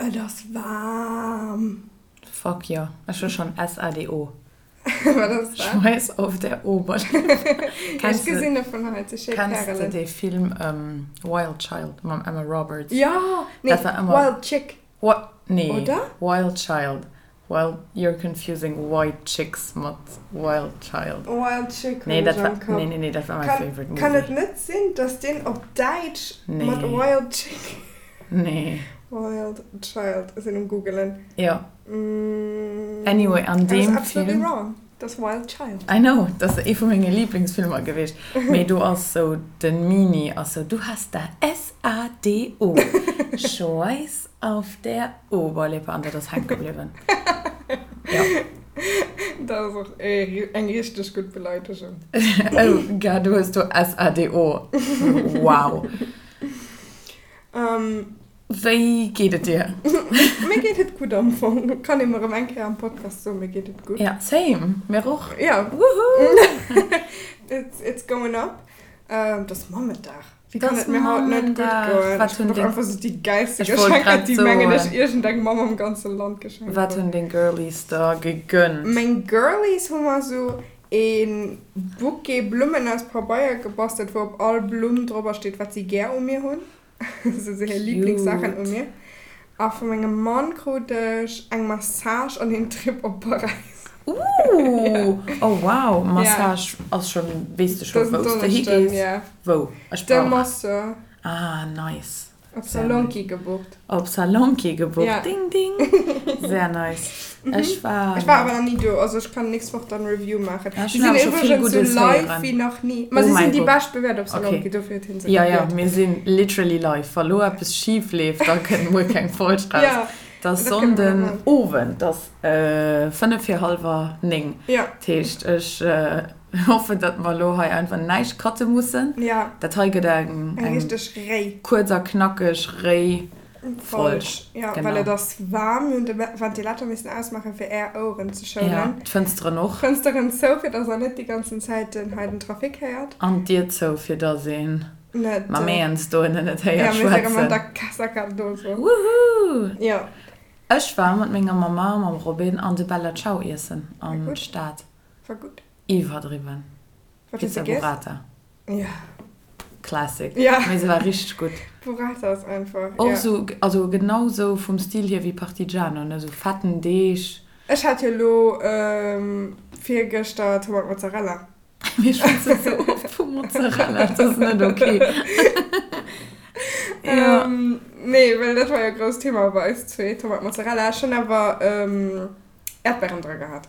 Et ass waarm. Fuck jo, ech hu schonn SADO. Wat ass dat? Schweiß auf der Oberlippe. Ech gesinn e vun hei, ze schéi Kenns de Pärelen. dee Film Wild Child mam Emma Roberts? Jo! Nee, Dat war ëmmer. Wild Chick. Wa nee, Oder? Wild Child. Well, you're confusing White Chicks mat Wild Child. Wild Chick Nee, hunn dat ech war, am Kapp. nee, nee, nee, dat war my Kann, favorite movie. kann et net sinn, dass deen op Däitsch mat Nee. Wild Chick. Nee. Wild Child, ech sinn um googelen. Jo. Anyway, an I was deem absolutely Film. wrong. Dat ass Wild Child. I know, dat ass ee vu menge Liblingsfilmer gewiescht. Mee do ass sou, den Mini ass sou, du hast da S-A-D-O, Schweiß auf der Oberlippe. An dat ass hänke bliwwen. Jo. Dat ass och eng richteg gutt Beleidegung. Oh Gad, du hues do S-A-D-O. Wow. Wéi geet et dir? Mir geet et gutt am Fong. Kann ee mer erëm eng Kéier am Podcast soen, mir geet et gutt. Ja, same. Mir och. Ja. Woohoo! It's, it's going up. Et ass Mammendag. Wéi Et kann ass et mir haut net gutt Mammendag. goen? Wat Ech hunn krut och deng. einfach sou déi gäilste Ech wollt Geschenker, grad déi mengen ech soen. iergendeng Mamm am ganze Land geschenkt Wat huet. hunn deng Girlies der gegönnt? Meng Girlies hu mer sou ee Bouquet Blummen aus Pabeier gebastelt, wou op all Blumm drobber steet, wat si gär u mir hunn. Sou hir Lieblingssaachen u Cute. mir. A vu mengem Mann krut ech eng Massage an een Trip op Paräis. Ooh! Oh wow, Ja. Massage ass schon, weess de scho Dësen wous de Donneschden, higees? ja. Wou? Ech De brauch. Masseur. Ah nice. Op Sehr nice. Salonki gebucht. Op Salonki gebucht, Ja. ding ding. Sehr nice. Ech war. Ech war awer nach ni do, also ech kann nächst Woch dann Review maachen. Ech Si hunn sinn awer scho vill iwwregens sou Guddes live héieren. wéi nach ni. Ma Oh si mäi sinn déi Gott. bescht bewäert op Okay. Salonki, dofir huet hien se Ja, ja, gewielt. mir sinn literally live. Wa lo eppes schif leeft, da kënnt muer keng Folg raus. Ja, Et ass dat kënne mer Sonnden maachen. Owend, et ass 5 vir hallwer 9. Ja. Dat heescht, ech hoffen, datt mer elo hei einfach näischt cutte mussen. Ja. Dat hei gëtt eng, Eng eng richteg réi. kuerz a knackeg réi Folg. Folg. Ja, well et Genau. ass waarm. Mir hunn de Ventilator missen ausmaachen, fir Är Oueren ze Ja, schounen. d'Fënsteren och. D'Fënsteren zou, fir datt Der net déi ganzen Zäit den hei den Trafic héiert. An d'Dier zou, fir datt een Net. d'Maméens dohinne net Ja, héiert mir si erëm an schwätzen. der Casa Cardoso. Woohoo! Ja. Ech war mat menger Mama a mam Robin an de Bella Ciao iessen War an gutt. d'Stad. War gutt. Iwwerdriwwen. Wat hues Pizza de giess? Burrata. Ja. Classic. Ja. Mee se war richteg gutt. Burrata ass einfach, Och ja. sou, also genau sou vum Stil hier wéi Partigiano, ne, sou fetten Deeg. Ech hat jo lo virgëschter Tomat Mozzarella. Mir schwätzen sou oft vu Mozzarella, dat ass net ok. Ja. Nee, well dat war jo e grousst Thema bei eis zwee, Tomat Mozzarella. Ech hunn awer Äerdbären dra gehat.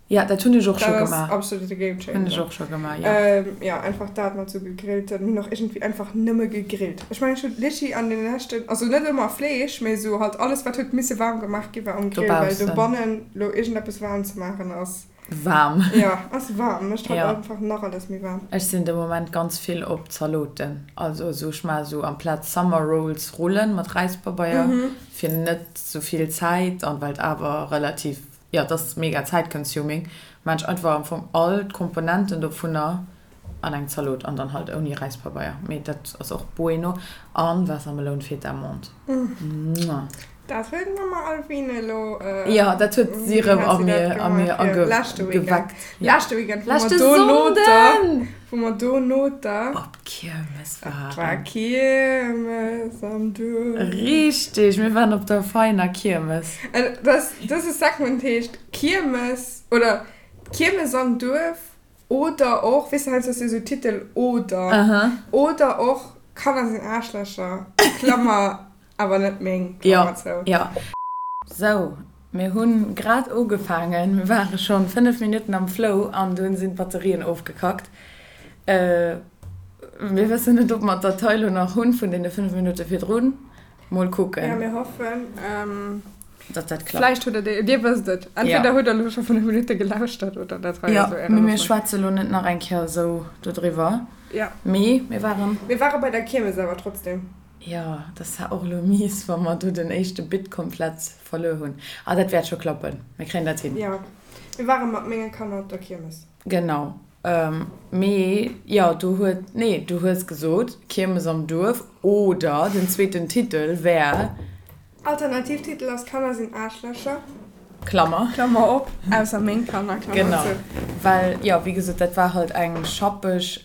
Ja, dat hunn ech och scho Dat ass gemaach. absolut e Game Hunn ech Changer. och scho gemaach, ja. Ja, einfach dat mat sou gegrillten, mir hunn och iergendwéi einfach nëmme gegrillt. Ech mengen, ech hunn Litchi an den leschten, also net ëmmer Fleesch, mee sou halt alles wat huet misse waarm gemaach gi war um Grill, well Dobaussen. dobannen lo iergendeppes waarm ze maachen ass. Waarm. Ja, ass waarm, mécht halt Ja. einfach nach alles méi waarm. Ech sinn de Moment ganz vill op Zaloten. Also esou, ech maache sou amplaz Summer Rolls Rullen mat Räispabeier, fir net sou vill Zäit an well et awer relativ Jo, et ass mega zäitconsuming. Maan ech einfach am Fong all d'Komponenten dovunner an eng Zalot an dann halt ouni Räispabeier. Mee dat ass och bueno. An Waassermeloun, Feta, Menthe. Mwah. Dat huet d'Mama Alvine elo. Jo, dat huet si erëm a mir a mir ageweckt. Leschte Weekend, wou mer Leschte do no der, Sonnden! wou mer do no der. Op d'Kiermes Et war waren. Kiermes am Duerf. Richteg, mir waren op der Veiner Kiermes. An das, dëse Segment heescht Kiermes oder Kiermes am Duerf oder och, weess de, heiansdo ass jo esou Titel oder, Aha. oder och Kanner sinn Aarschlächer, Klammer, awer net meng, Jo, Klammer zou. jo. Sou, mir hunn grad ugefaangen, mir ware schonn 5 Minutten am Flow an dunn sinn d'Batterien ofgekackt. Mir wëssen net, ob mer d'Datei lo nach hunn vun deene 5 Minutte virdrun. Mol Ja, kucken. mir hoffen. Datt dat klappt. Vläicht hutt der, Dir wësst et. Entweder Ja. hutt der elo scho 5 Minutte gelauschtert oder dat hei Ja, ass elo Ären mee mir Ufank. schwätze lo net nach eng Kéier esou dodriwwer. Ja. Mee mir waren. Mir ware bei der Kiermes awer trotzdem. Jo, dat war och elo mies, wa mer do den éischte Bit komplett verluer hunn. Ah, dat wäert scho klappen. Mir kréien dat hin. Jo, mir ware mat menge Kanner op der Kiermes. Genau. Mee jo, du huet, nee, du hues gesot, Kiermes am Duerf oder den zweeten Titel wär. Alternativtitel ass Kanner sinn Aarschlächer. Klammer. Klammer op, ausser meng Kanner, Klammer Genau. zou. Well, jo, wéi gesot, dat war halt eng schappeg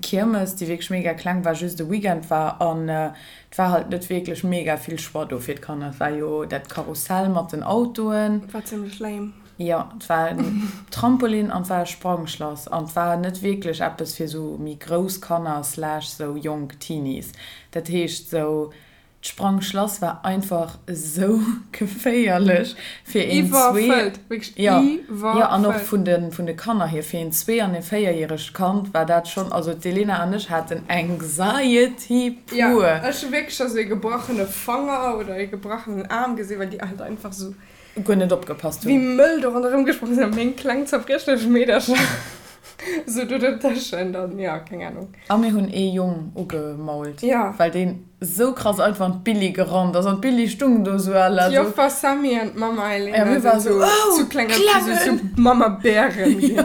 Kiermes, déi wierklech mega kleng war, just e Weekend war an et war halt net wierklech mega vill Choix do fir d'Kanner. Et war jo dat Karussell mat den Autoen. War zimmlech lame. Jo, et war en Trampolin an et war e Sprangschlass an et war net wierklech eppes fir sou méi grouss Kanner slash sou jonk Teenies. Dat heescht sou D'Sprangschlass war einfach esou geféierlech fir een zwee, Iwwerfëllt, wierklech jo, jo, an och iwwerfëllt. vun de, vun de Kanner hier, fir een zwee an ee véierjäregt Kand war dat schonn, also d'Elena an ech haten Anxiety Jo, pur. ech hu wierklech scho sou ee gebrachene Fanger oder ee gebrachenen Aarm gesinn, well déi halt einfach sou Guer net opgepasst wéi hunn. mëll do ronderëm gesprong sinn a meng kleng zerbriechlech Meedercher sou do dertëschent an jo, keng Ahnung. A mir hunn ee Jong ugemault, Ja. well deen sou krass einfach an d'Billi gerannt ass an d'Billi stung do sou à la sou. D'Joffer Sammy an d'Mamma Ja, Elena mir sinn ware sou, sou oh, zu kleng, Klengen! zu Mammabären ginn. Jo.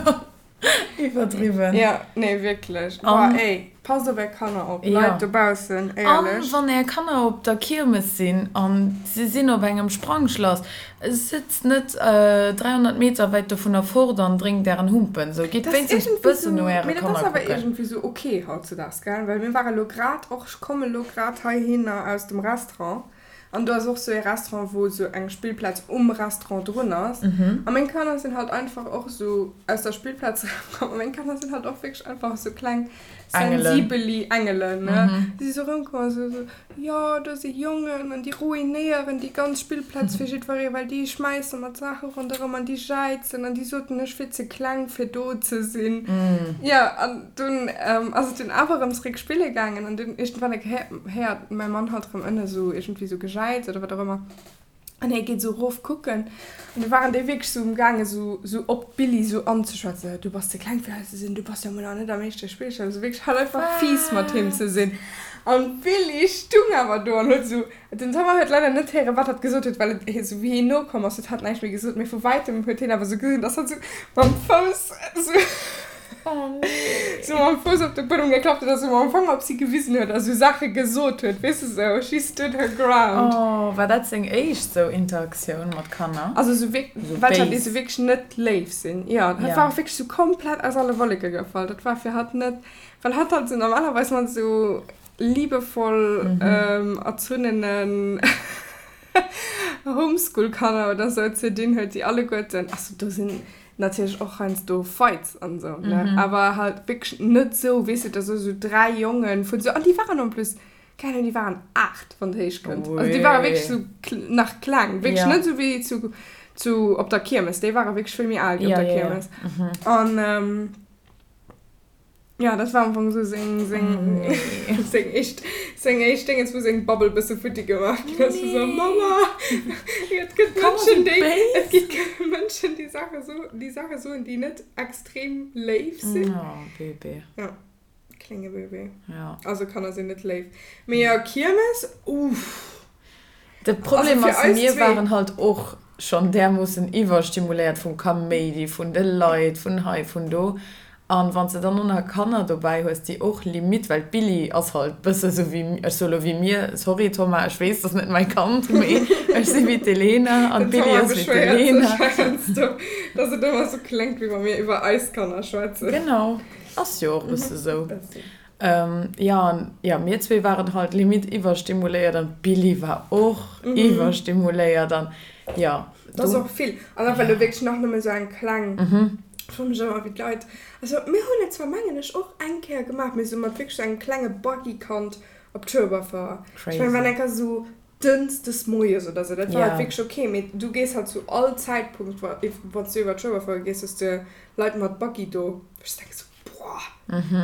Iwwerdriwwen. Ja, nee wierklech. Boah, An, ey, passt op är Kanner op, ja. Leit dobaussen, An éierlech. wann är Kanner op der Kiermes sinn an si sinn op engem Sprangschlass, sëtzt net 300 Meter wäit dovunner fort an drénkt ären Humpen. Sou, gitt Dat ass wéinstens iergendwéi bëssen no sou, äre mee dat Kanner ass awer kucken. iergendwéi sou ok hautzedaags, gell? Well mir ware lo grad och, ech komme lo grad heihinner aus dem Restaurant An do ass och sou ee Restaurant, wou sou eng Spillplaz um Restaurant drun ass. A meng Kanner sinn halt einfach och sou aus der Spillplaz erëmkomm. A meng Kanner sinn halt och wierklech einfach sou kleng sensibeli Engelen, ne. Si si sou erëmkomm a sou, jo, do si Jongen an déi ruinéieren déi ganz Spillplaz fir jiddweree, well déi schmäisse mat Saache ronderëm an déi jäizen an déi soten, ech wier ze kleng fir do ze sinn. Jo, an dunn ass et dunn awer erëm zeréck spille gaangen an dunn iergendwann eng Kéier héiert mäi Mann halt erëm ënne sou iergendwéi sou Gejäiz oder wat och ëmmer an hie geet sou erof kucken an du waren déi wierklech sou um gaange sou sou op d'Billi sou anzeschwätzen, du bass ze kleng fir hei ze sinn, du bass jo mol nach net am éischte Spillchen, also wierklech halt einfach fies mat him ze sinn an d'Billi stung awer do an huet sou Den Thomas huet leider net héieren, wat hatt gesot huet, well et esou wéi hien nokomm ass, huet hatt näischt méi gesot. Mee vu wäitem huet hien awer esou gesinn, dass hatt esou mam Fouss esou esou mam Fouss op de Buedem geklappt huet a sou mam Fanger op si gewisen huet a sou Saache gesot huet, weess de, sou she stood her ground. Oh, war dat seng éischt sou Interaktioun mat Kanner? Also sou wierk, Sou welcher, déi béis? sou wierklech net léif sinn. Jo, hatt war och wierklech sou komplett aus alle Wolleke gefall. Dat war fir hatt net, well hatt halt sou normalerweis mat sou liebevoll erzunnenen Homeschool-Kanner oder sou ze dinn huet, déi alleguerten, also do sinn natierlech och heiansdo Fights an sou, ne, awer halt wierklech net sou, weess de, da sou 3 Jongen vun sou, an déi waren en plus, keng Ahnung, déi waren 8, wann et héich kënnt, also déi ware wierklech sou nach kleng, wierklech net sou wéi zu, zu op der Kiermes, déi ware wierklech vill méi al wéi op der Kiermes an. Ja, dat war am Fong sou seng, seng, Oh nee. seng éischt, seng éischt Déngens, wou seng Bubble bësse futti gemaach ginn ass, wou sou, Mama, et gëtt Kanner Mënschen, si déi, et béis. gi Mënschen, déi Saache so, déi Saache soen, déi net extrem léif sinn. Oh, Bébé. Ja, klénge Bébé. Ja. Also Kanner sinn net léif. Mee jo, Kiermes, uff. De Problem Also fir ass, eis mir zwee. waren halt och schonn därmoossen iwwerstimuléiert vum Kaméidi, vun de Leit, vun hei, vun do. An wann s de dann och nach Kanner dobäi hues, déi och limite, well d'Billie ass halt bësse sou wéi, ech soe lo wéi mir, sorry Thomas, ech weess, dat ass net mäi Kand, mee ech si wéi d'Elena an Den d'Billie Thomas ass wéi beschwéiert d'Elena. sech heiansdo, dass et ëmmer sou kléngt, wéi wa mir iwwer eis Kanner schwätzen. Genau, ass jo och e bësse sou. Bëssi. Jo, an jo, mir zwee waren halt limite iwwerstimuléiert an d'Billie war och iwwerstimuléiert an jo. Dat ass och vill. An da well elo wierklech nach nëmme sou eng kleng, ech froe mech ëmmer wéi d'Leit, also mir hunn et zwar mengen ech och eng Kéier gemaach, mee sou mat wierklech sou engem klenge Buggy-Kand op d'Schueberfouer. Ech mengen, wann eng Kéier sou Dënschdes moies oder sou, dat war halt wierklech ok, mee du gees halt zu all Zäitpunkt, wa wann s du iwwer d'Schueberfouer gees, hues de Leit mat Buggy do, wou ech denke sou, boah,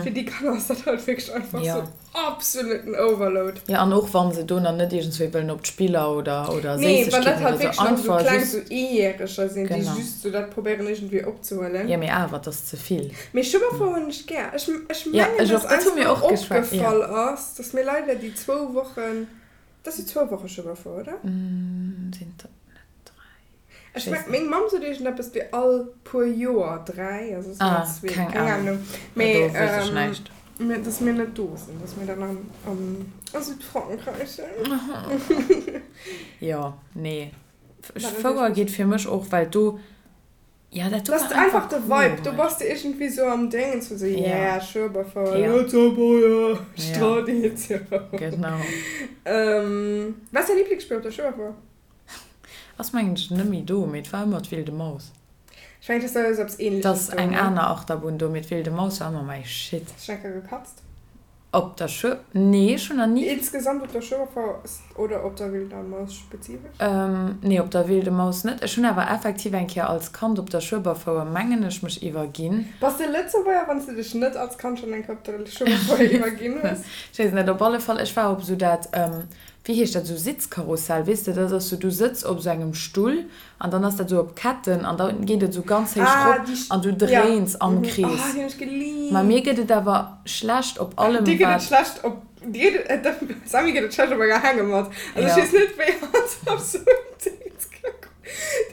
fir déi Kanner ass dat halt wierklech einfach sou absoluten Overload. Jo, an och wa se do nach net iergendswéi wëllen op d'Spiller oder oder Nee, wann dat Séissegkeeten halt oder sou, wierklech nach sou einfach kleng, just. sou Eejäreger sinn, déi Genau. just sou dat probéieren iergendwéi opzehuelen. Jo, mee awer, et ass ze vill. Mee Schueberfouer hunn ech gär. Ech ech Jo, mengen, ech dass och, dat eis hu mir mol och geschwat, jo. opgefall ass, dass mir leider déi zwou Wochen, Dat si zwou Woche Schueberfouer, oder? Sinn dat net dräi? Ech meng, meng Mamm sot iergendeppes wéi all puer Joer dräi, also sinn dat zwee, keng Ahnung. Mee, dass mir net do sinn, dass mir dann am, am. A Südfrankräich sinn. Jo, nee. Fouer geet fir mech och, well do, jo, dat do war einfach de Vibe, do bass de iergendwéi sou am Déngens vu sou, yeah, Schueberfouer, Lëtzebuerger, Traditioun. Genau. Wat ass däi Liblingsspill op der Schueberfouer? Ass mengen ech net méi do, mee et war ëmmer d'Wilde Maus. Ech mengen, et ass esou eppes Ähnleches do, ne? Et ass eng aner Achterbunn do, mee d'Wilde Maus war ëmmer mäi Shit. Hast du schon eng Kéier gekatzt? Op der Schuer? Nee, ech hunn nach ni. Insgesamt op der Schueberfouer oder op der Wilder Maus spezifesch? Nee, op der Wilde Maus net. Ech hunn awer effektiv eng Kéier als Kand op der Schueberfouer, mengen ech, mech iwwerginn. Bass de Lëtzebuerger, wann s de dech net als Kand schonn eng Kéier op der Schueberfouer iwwerginn hues? Ech weess et net. Op alle Fall, ech war op esou dat, wéi heescht dat, esou Sitzkarussell, weess de, dat ass esou, du sëtz op esou engem Stull An dann ass dat esou op Ketten an da geet et esou ganz héich rop an du dréins am Krees. Ma mir gëtt et awer schlecht op allem wat. Dir gëtt et schlecht op, dir gëtt et, dem Sammy gëtt et schlecht op enger Hängematt. Also ech weess net wéi hatt op esou en Dings ka kommen.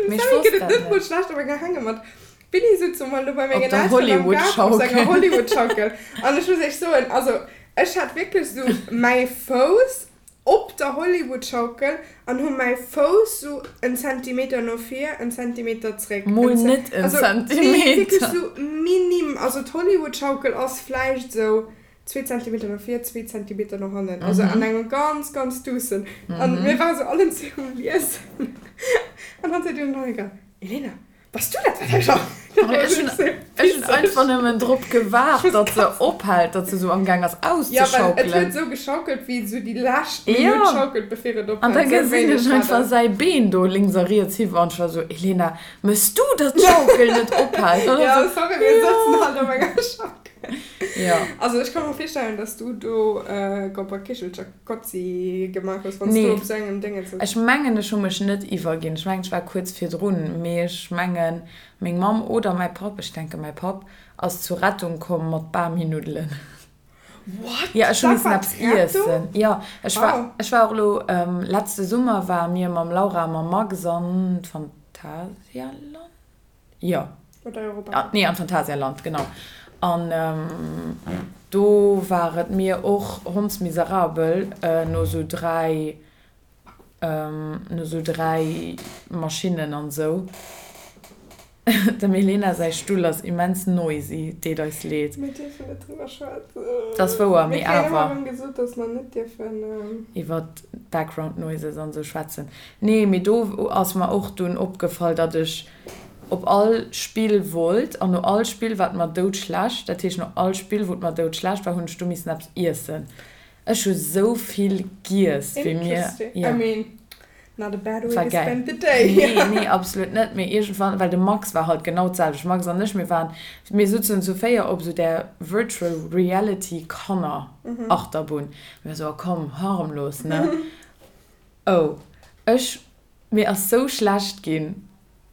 Dem Sammy gëtt et net mol schlecht op enger Hängematt. D'Billy sutz emol do bei mengen Elteren am Gaart op senger Hollywood-Schaukel an ech muss iech soen, also ech hat wierklech esou mäi Fouss op der Hollywood-Schaukel an hu mäi Fouss sou en Zentimeter no vir, en Zentimeter zréck. Mol net en Zentimeter. Nee, wierklech sou minim. Also d'Hollywood-Schaukel ass vläicht sou zwee Zentimeter no vir, zwee Zentimeter no hannen. Also an engem ganz, ganz duussen. An mir ware sou allen zwee um Liesen. An dann seet dunn den Holger, Elena, Bass du dat wat hei scho? Ech hunn ech hunn einfach nëmmen drop gewaart, datt se ophält, datt se sou amgaang ass Ja, well et huet esou geschaukelt, wéi esou déi lescht Minutt schaukelt, bevir et ophält. An da gesinn ech einfach säi Been do lénks a riets hiwwer an ech war sou, Elena, mëss du, datt d'Schaukel net ophält? An Ja, sorry, mir sëtzen halt op enger Schaukel. Jo. Also ech ka mer virstellen, datt s du do Gobberkichelcher Gotzi gemaach hues, wann s du op sou engem Déngen sëtz. Ech mengen, ech hu mech net iwwerginn. Ech mengen, ech war kuerz virdrun, mee ech mengen, meng Mamm oder mäi Papp, ech denke mäi Papp, ass zur Rettung komm mat Bami-Nuddelen. What? Jo, ech hu missen eppes iessen. Jo, ech war, ech war och elo, letzte Summer ware mir mam Laura a mam Max an d'Phantasialand. Jo. Oder Europa. Nee, am Phantasialand, genau. An do war et mir och hondsmiserabel no sou 3, no sou 3 Maschinnen an sou. Dem Elena säi Stull ass immens noisy, deet eis leed. Mir dierfen net driwwer schwätzen. Dat ass wouer, mee awer. Mir kréien ëmmer erëm gesot, dass mer net dierfen. Iwwer Background Noises an sou schwätzen. Nee, mee do ass mer och dunn opgefall, datt ech op all Spill wollt an no all Spill war et mer doudschlecht. Dat heescht, no all Spill, wou et mer doudschlecht war, hunn ech du missen eppes iessen. Ech hu sou vill giess, wéi mir. Interesting. I mean, not a bad way War to gäil. spend the day. Nee, nee, absolut net. Mee iergendwann, well de Max war halt genau d'selwecht. Max an ech, mir waren, mir sutzen zu 4 op sou där Virtual Reality Kanner Achterbunn. Mir sou, oh komm, harmlos, ne? Oh, ech, mir ass sou schlecht ginn.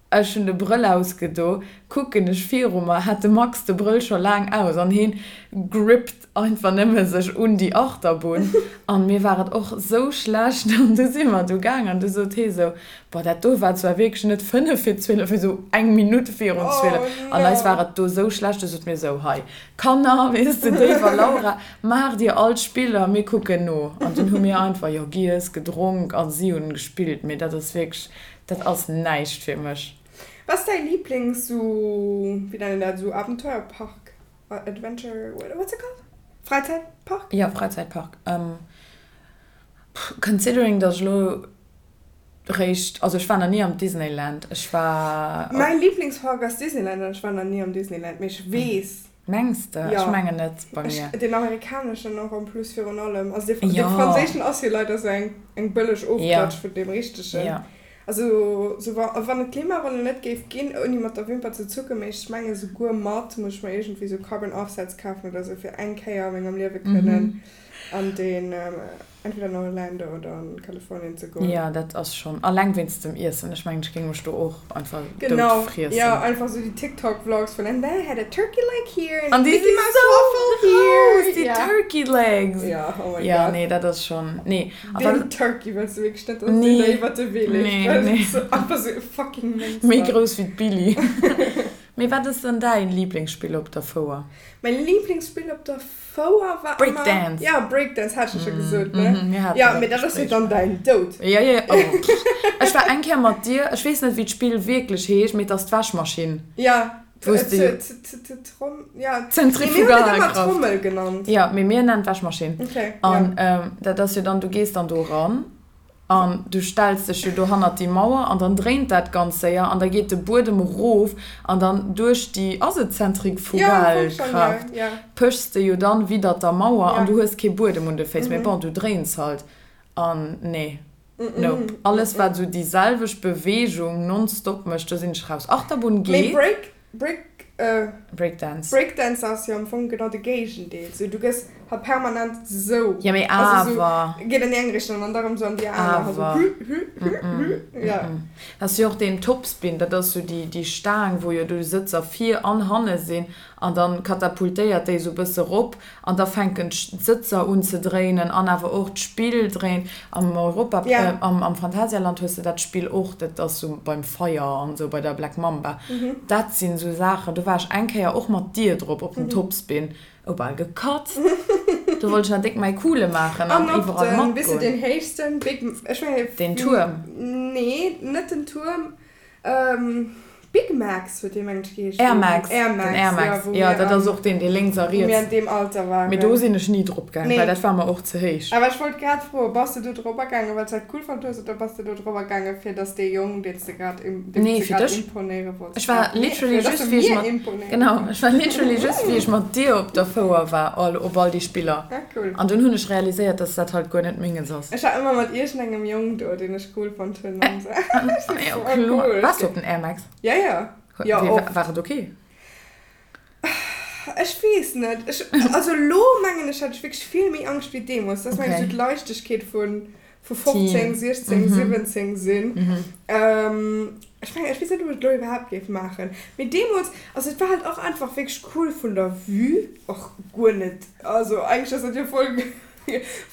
Ech hunn de Brëll ausgedo, kucken ech viru mer, hat de Max de Brëll scho laang aus an heen grippt einfach nëmme sech un déi Achterbunn an mir war et och sou schlecht an du si mer du gaang an du sot hee sou, boah dat do war zwar wierklech net 5 vir 12, mee sou eng Minutt virun 12 an eis war et do sou schlecht, du sot mir sou, hei Kanner, weess de, Dave a Laura, maacht dir all d'Spiller, mir kucken no. An dunn hu mir einfach, jo, giess, gedronk a si hunn gespillt. Mee dat ass wierklech, dat ass näischt fir mech. Wat ass däi Lieblings sou, wéi nennt een dat, sou Abenteuerpark, Adventure, what's it called? Fräizäitpark? Jo, Fräizäitpark. Considering, datt ech elo Réischt, also ech war nach ni am Disneyland, ech war. Mäin Lieblingspark ass Disneyland an ech war nach ni am Disneyland, mee ech weess. Mengs de? Jo. Ech mengen net bei mir. Ech, deen amerikaneschen och en plus virun allem, also dee, dee franséischen ass jo leider sou eng, eng bëlleg Ofklatsch vun deem richtegen. Jo. Also sou wa, wann et Klimawandel net géif ginn, ouni mat der Wimper ze zucken, mee ech menge souguer mat, muss ech mer iergendwéi sou Carbon Offsets kafen oder sou fir eng Kéier a mengem Liewe kënnen an deen. Entweder an Orlando oder an Kalifornien ze goen. Jo, dat ass schon, alleng wéinst dem Iessen. Ech mengen, ech géing mech do och einfach dout Genau, friessen. jo, einfach sou déi TikTok Vlogs vun and then I had a turkey leg here and a An déi si Mickey Mouse sou waffle here. grouss, déi Ja. Turkey legs! Jo, oh my Jo, god. nee, dat ass schon, nee. A Deen wat. Turkey wëlls du wierklech net, dass deen Nee, der iwwert de Wee leeft, nee, well nee. dat ass einfach sou e fucking Méi Monster. grouss wéi d'Billie. Mee wat ass dann däin Lieblingsspill op der Fouer? Mäin Lieblingsspill op der Fouer war ëmmer. Breakdance! Ja, Breakdance hat ech jo scho gesot, ne? Mir haten dat Mee dat ass jo dann däin Doud. Jo, jo, oh. Ech war eng Kéier mat dir, ech weess net wéi d'Spill wierklech heescht, mee et ass d'Wäschmaschinn. Ja, Wou s de. Ja. Zentrifugalkraft. Trommel genannt. Ja, mee mir nennen d'Wäschmaschinn. Okay. An dat ass jo dann, du gees dann do eran an du stells dech jo do hannert déi Mauer an dann dréint dat ganz séier an da geet de Buedem erof an dann duerch déi, ass et Zentrifugalkraft, pëchs de jo dann widdert der Mauer an du hues kee Buedem un de Féiss, mee bon, du dréins halt an nee. Nope. Alles wat esou déi selwecht Beweegung nonstop mécht, do sinn ech raus. Achterbunn geet. Mee Break, Break, äh. Breakdance. Breakdance ass jo am Fong genau de Géigendeel. Sou du gëss halt permanent sou. Ja mee Also awer. sou geet an déi eng Richtung an da rëm sou an déi aner. Also Awer. hü, hü, hü, hü. Ja. Dat ass jo och deen Topspin, dat ass sou déi, déi Staang wou jo do Sëtzer vir an hanne sinn an dann katapultéiert déi sou bësse rop An da fänken d'Sëtzer un ze dréinen an awer och d'Spill dréint. Am Europa, am Phantasialand hues de dat Spill och, dat ass sou beim Feier an sou bei der Black Mamba. Dat sinn sou Saachen, do war ech eng Kéier och mat dir drop op dem Topspin, oh bal gekatzt. Do wollt ech nach déck mäi Coole maachen an iwwerall matgoen. An op den héichsten Big, ech mengen. Den Tuerm? Nee, net den Tuerm. Big Max huet dee mengen ech geheescht. Air Max, den Air Max, jo dat ass och deen dee lénks a riets. Wou mir an deem Alter waren. Mee do sinn ech ni drop gaang, well dat war mer och ze héich. Awer ech wollt grad froen, bass de do drop gaangen well s de dat cool fonnt hues oder bass de do drop gaangen fir dass dee Jong deen s de grad deem s de grad imponéiere wollts. Ech war literally just wéi ech mat, genau, ech war literally just wéi ech mat dir op der Fouer war all op all déi Spiller. Ah cool. An dunn hunn ech realiséiert dass dat halt guer net menges ass. Ech war ëmmer mat iergendengem Jong do deen ech cool fonnt hunn an sou. Jo kloer. Waars du op den Air Max? Ja ja. Jo oft. War et ok? Ech weess net. Ech, also lo mengen ech hat ech wierklech vill méi Angscht wéi deemools. Dat ass mengen ech sou d'Leichtegkeet vun vu 15, 16, 17 sinn. Ech mengen, ech weess net ob ech et lo iwwerhaapt géif maachen. Mee deemools, also et war halt och einfach wierklech cool vun der Vue, och guer net, also eigentlech ass dat jo voll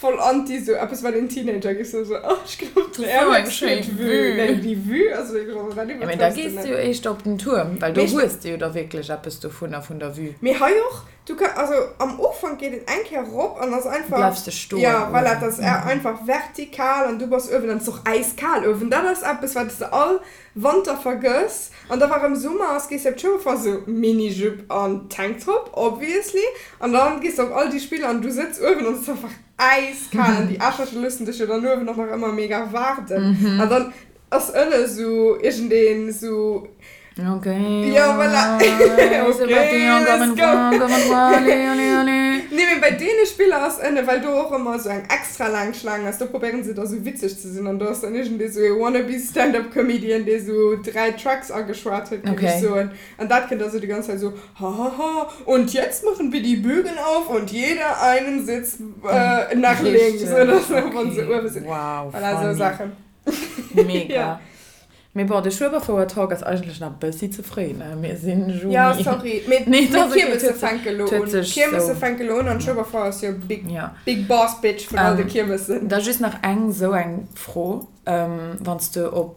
Voll anti sou eppes wat een Teenager géif soen, sou oh ech ginn op den Air Max fir d'Vue. Nee déi Vue ass wierklech, also dat Mee da iwwertrëfs de gees net. de jo éischter op den Tuerm, well do hues de jo da wierklech eppes dovunner, vun der Vue. Mee hei och, du ka, also am Ufank geet et eng Kéier rop an ass einfach, Bleifs de stoen jo voilà, et ass einfach vertikal an du bass uewen an et ass och äiskal uewen. Dat ass eppes wat s de all Wanter vergëss an da wa rëm Summer ass gees de op d'Schoulfest sou Mini-Jupe an Tanktop obviously an dann gees de op all déi Spiller an du sëtz uewen an et ass einfach äiskal an déi Aarschlëcher loossen dech jo dann uewen och nach ëmmer mega waarden an dann ass ënne sou iergendeen sou Ok, Jo voilà ok let's go Nee mee bei deene Spiller ass ënne well do och ëmmer sou eng extra laang Schlaang ass do probéieren se da sou witzeg ze sinn an do ass dann iergendee sou ee wannabe Stand-up Comedian dee sou 3 Tracks ageschwat huet géif ech soen an dat kënnt da sou déi ganz Zäit sou hahaha und jetzt machen wir die Bügel auf und jeder einen Sitz nach links oder sou wann se uewe sinn. Voilà sou Saachen. Mega. Mee bon, de Schueberfouer-Talk ass eigentlech nach e bëssi ze fréi, ne? Mir sinn Juni. Ja, sorry. Mee Nee, et ass okay. d'Kiermesse fänke lo un. D'Kiermesse fänke lo un an d'Schueberfouer ass jo big, big boss bitch vun all de Kiermessen. Da just nach eng esou eng Fro, wann s de op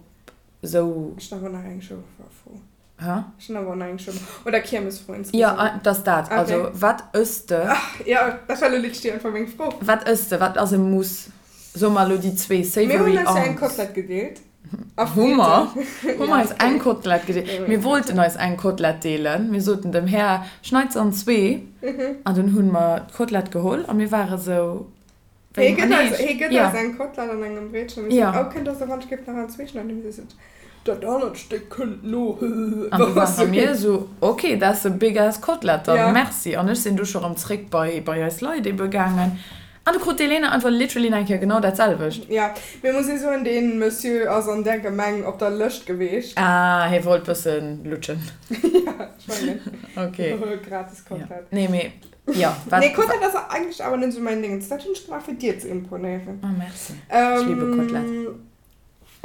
esou. Ech hunn awer nach eng Schueberfouer-Fro. Hä? Ech hunn awer och nach eng Schueber oder Kiermesfro insgesamt. Jo, et ass dat. Also, wat ëss de? Ach, jo, dat war lo literally einfach meng Fro. Wat ëss de? Wat ass e Muss? Soe mer elo déi zwee Mir savory hunn eis jo eng arms. Kotlett gedeelt. A Hu mer? Fritten. Hu mer eis eng Kotlett gedeelt? Mir wollten eis eng Kotlett deelen. Mir soten dem Här, Schneit se an zwee. An dunn hu mer d'Kotlett geholl a mir ware sou, Wéi gëtt eis, hie gëtt eis eng Kotlett an engem Breetchen. Mir soten, oh, kënnt der se wann ech géif nach an zwee schneiden? Mir sot, dat anert Stéck kënnt no. An du ware mir sou, ok, that's a big ass Kotlett dann, merci. An ech sinn du scho rëm zréck bei, bei eis Leit ebe gaangen. An du krut d'Elena einfach literally nach eng Kéier genau dat selwecht. Jo, mee muss ee soen, dee Monsieur ass an där Gemeng op der Lëscht geweecht. Ah, hie wollt bëssen lutschen. Jo, ech mengen. Ok. Gratis Kotlett. Nee, mee jo, wat. Nee, Kotlett ass eigentlech awer net esou mäin Ding. Dat hunn ech gemaach, fir dir ze imponéieren. Oh, merci. Ech liebe Kotlett.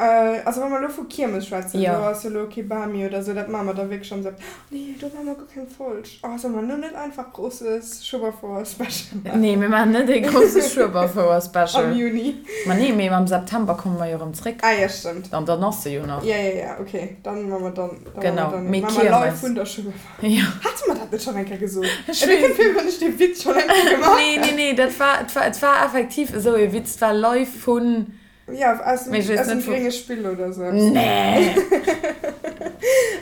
Also wa mer elo vu Kiermes schwätzen, do ass jo elo kee Bami oder sou, dat maache mer da wierklech am September. Nee, do maache mer guer keng Folg. Oh, solle mer elo net einfach grosses Schueberfouer-Special maachen? Nee, mir maachen net ee grosse Schueberfouer-Special. Am Juni. Ma nee, mee am September komme mer jo erëm zréck. Ah jo, stëmmt. An dann ass se jo nach. Jo, jo, jo, okay. Dann maache mer dann, dann maache mer dann, maache mer live vun der Schueberfouer. Jo. Hate mer dat net schonn eng Kéier gesot? Ech weess. Et kënnt vir, wéi wann ech dee Witz schonn eng Kéier gemaach hätt. Nee, nee, nee, dat war, et war, et war effektiv esou ee Witz. Et war live vun. Ja, aus dem, aus dem grénge Spill oder sou eppes. Nee!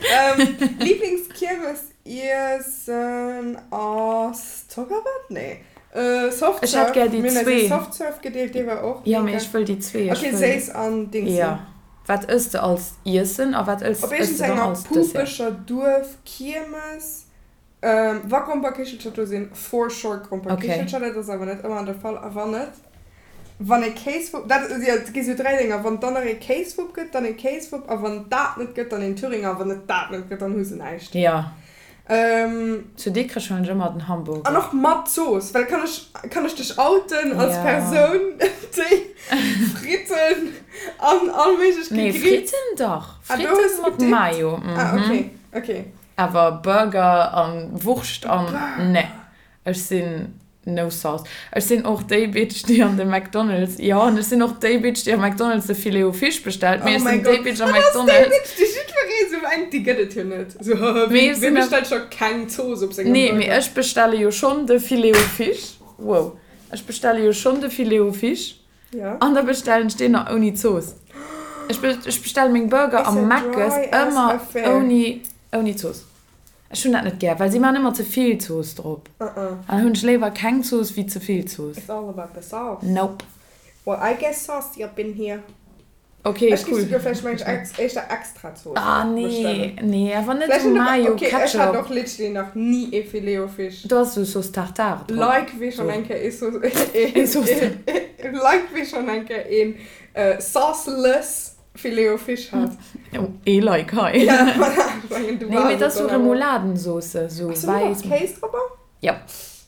Ähm, Lieblingskiermesiessen ass Zockerwatt? Nee. Äh, Softserve. Ech hätt gär déi Mir hunn eis zwee. ee Softserve gedeelt, dee war och Ja, mee mega. ech wëll déi zwee. Ech Okay, wëll. séiss an Dingsi. Ja. Wat ëss de als Iessen a wat ëss Op ëss de dann iergendsenger als Dessert? pupeger Duerfkiermes Wa Gromperkichelcher do sinn, for sure Gromperkichelcher, Okay. dat ass awer net ëmmer de Fall. A wann net, wann e Kéiswupp, dat, jo, et gi sou 3 Dénger, wann et dann nach ee Kéiswupp gëtt, dann ee Kéiswupp, a wann et dat net gëtt, dann een Thüringer, a wann et dat net gëtt, dann hu se näischt. Jo. Zu Dikrech huelen ech ëmmer den An Hamburger. och mat Zooss, well kann ech, kann ech dech outen als Jo. Persoun, déi Fritten an all méiglech Nee, Gegrills. Fritten dach. Ah, do hues Fritten de mat gedippt? Mayo, Ah, mhm. okay, okay. Awer Burger an Wurscht an ne, ech sinn no sauce. Ech sinn och déi Bitch déi an de McDonald's, jo an ech sinn och déi Bitch déi am McDonald's de Filet o Fish bestellt, mee Oh ech mäi sinn déi Gott, Bitch am dat ass déi McDonald's. Bitch déi jiddweree sou mengt déi gëtt et jo net. Sou haha, Mee ech wee sinn awer. bestellt scho keng Zooss op sengem Nee, mee Burger? ech bestelle jo schonn de Filet o Fish, wow, ech bestelle jo schonn de Filet o Fish Ja. an da bestellen ech deen nach ouni Zooss. Ech ech bestelle meng Burger It's am a Mc's dry ass ëmmer affair. ouni ouni Zooss. Ech hunn dat net gär, well si maachen ëmmer ze vill Zooss drop. Uh-uh. An dann hunn ech léiwer keng Zooss wéi ze vill Zooss. It's all about the sauce. Nope. Well I get saucy up in here. Ok, Ech géif cool. souguer vläicht mengen ech éischter extra Zooss Ah nee, bestellen. nee, awer net Vläicht esou net op, Mayo, ok, ech hat Ketchup. och literally nach ni ee Filet-o-Fish. Do ass esou Sauce Tartare drop. Like wee schonn Sou. eng Kéier ee Sauce, Ee Sauce. Like wee schonn eng Kéier een sauceless Filet-o-Fish hat. Oh, ee Like hei. Ja, voilà, ech mengen du Nee, mee waars et et ass sou dann awer. Remouladen-Sauce, sou Ass do net och wäiss. Kéis dropper? Ja.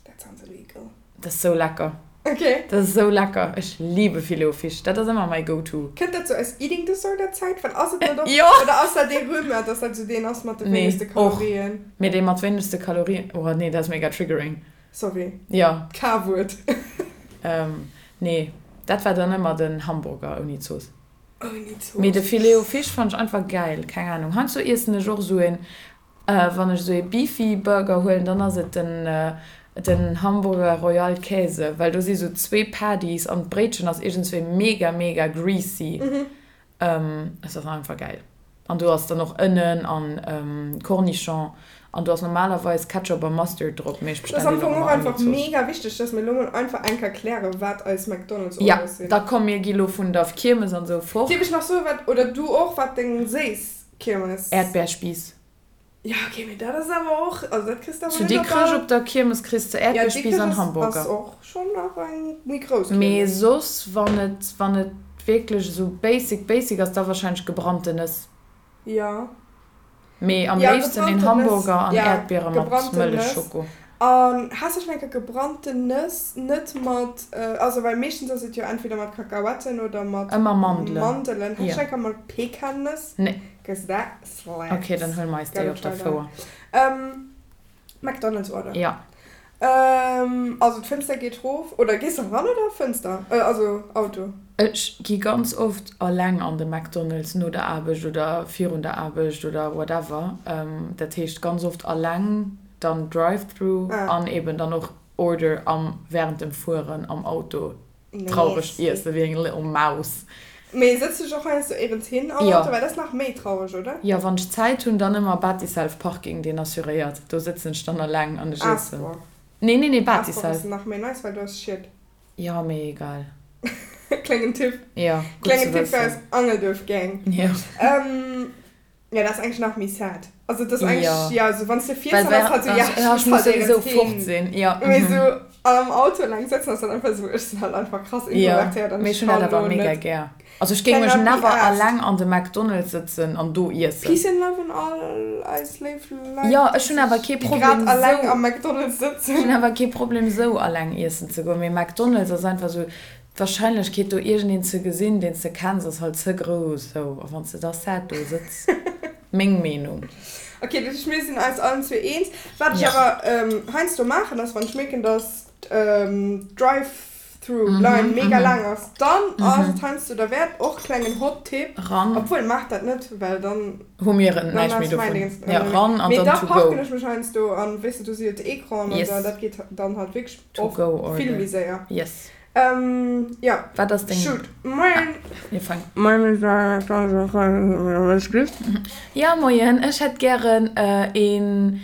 That sounds illegal. Dat ass sou lecker. Ok. Dat ass sou lecker. Ech liebe Filet-o-Fish. Dat ass ëmmer mäi Go-To. Kënnt dat sou aus Eating Disorder Zäit? Well ass et net och, Jo. oder ass dat ee Rumeur, dass dat sou deen ass mat de Nee, wéinegste och. Kalorien? Mee dee mat wéinegste Kalorien, oh nee, dat ass mega triggering. Sorry. Jo. D'K-Wuert. Nee, dat war dann ëmmer den Hamburger ouni Zooss. Ouni Zooss. Mee de Filet-o-Fish fannt ech einfach gäil. Keng Ahnung. Heiansdo iessen ech och esou een, wann ech esou ee Beefy Burger huelen, dann ass et den den Hamburger Royal Käse, well do si sou zwee Patties an d'Bréitchen ass iergendswéi mega mega greasy. Es ass einfach gäil. An do ass dann och Ënnen an Cornichon an do ass normalerweis Ketchup a Mustard drop, mee ech Et ass bestellen am deen och Fong och ëmmer ouni einfach Zooss. mega wichteg, dass mir elo mol einfach eng Kéier klären, wat eis McDonald's Ja, Orders sinn. da komm mir gi lo vun der Kiermes an sou fort. Dierf ech nach soen, wat, oder du och, wat deng séiss Kiermes. Äerdbeerspiiss. Ja, okay, mee dat ass awer och, also dat kriss de awer Zu net op Dikrech all. op der Kiermes kriss de Ja, Äerdbeerspiiss Dikrech an ass, Hamburger. ass och schonn nach eng méi grouss Mee Kiermes. soss, wann et, wann et wierklech esou basic, basic ass, da wahrscheinlech gebrannte Nëss. Ja. Mee am Ja, léifsten een gebrannten Nëss, Hamburger an ja, Äerdbiere mat gebrannten Nëss. Mëllechschoko. An has de schonn eng Kéier gebrannten Nëss net mat, also well meeschtens ass et jo entweder mat Kakaoetten oder mat Ëmmer Mandelen. Mandelen. Has de Ja. schonn eng Kéier mat Pekannëss? Nee. Cause that slaps. Ok, dann huele mer eis déi Gotta op der try that. Fouer. Ähm, McDonald's Order. Ja. Ähm, also d'Fënster geet rof, oder gees de ran oder Fënster? Äh, also Auto. Ech gi ganz oft alleng an de McDonald's no der Aarbecht oder virun der Aarbecht oder whatever. Dat heescht ganz oft alleng, dann Drive-Through an eben dann och Order am während dem Fueren am Auto. Traureg iesse wéi eng little mouse. Mee sëtz dech och heiansdo éierens hin am Auto? Well dat ass nach méi traureg, oder? Jo, wann ech Zäit hunn, dann ëmmer Batiself Parking, deen assuréiert. Do sëtzen ech dann alleng an ech iessen. Aasbor. Nee, nee, nee, Aasbor ass Batiself. nach méi nice, well do ass Schied. Jo, mee egal. Klengen Tipp. Jo, gutt ze Klengen Tipp fir wëssen. eis Angelduerf Gang. Jo. Ja, dat ass eigentlech nach méi sad. Also dat ass eigentlech, Ja. ja, also wann s de fiers, Well dann ass halt sou, ja, ja, ech muss halt souwisou éierens fort hin. sinn. Ja, Mee mhm. sou am Auto eleng sëtzen ass dann einfach sou, ech sinn halt einfach krass Ja, introvertéiert an mee ech ech hunn dat kann awer do mega net. gär. Also ech géing mech Cannot be never arsed. alleng an de McDonald's sëtzen an do iessen. Peace and love un all eis léif Leit, Ja, déi ech hunn awer sech, kee déi grad Problem eleng sou. am McDonald's Ech hunn sëtzen. awer kee Problem sou alleng iessen ze goen, mee McDonald's ass einfach sou,. D'Warscheinlechkeet do iergendeen ze gesinn, deen s de kenns, ass halt ze grouss esou. A wann s de da sad do sëtz. Meng Meenung. Ok, dat heescht mir sinn eis allen zwee eens. Wat ech awer heiansdo maachen ass, wann ech mierken, dass d'Drive-through Line mega laang ass, dann ass et heiansdo derwäert, och klengen Hot Tip, obwuel maacht dat net, well dann hu mir näischt méi dovun, jo ran an dann to go. Mee da parken ech mech heiansdo an, weess de, do si jo d'Ecranen an esou, dat geet dann halt wierklech oft vill méi séier. Yes. Ähm, ja. Wat ass deng. Shoot. Moien. Mir fang. Moien. Ja, moien. Ech hätt gären een.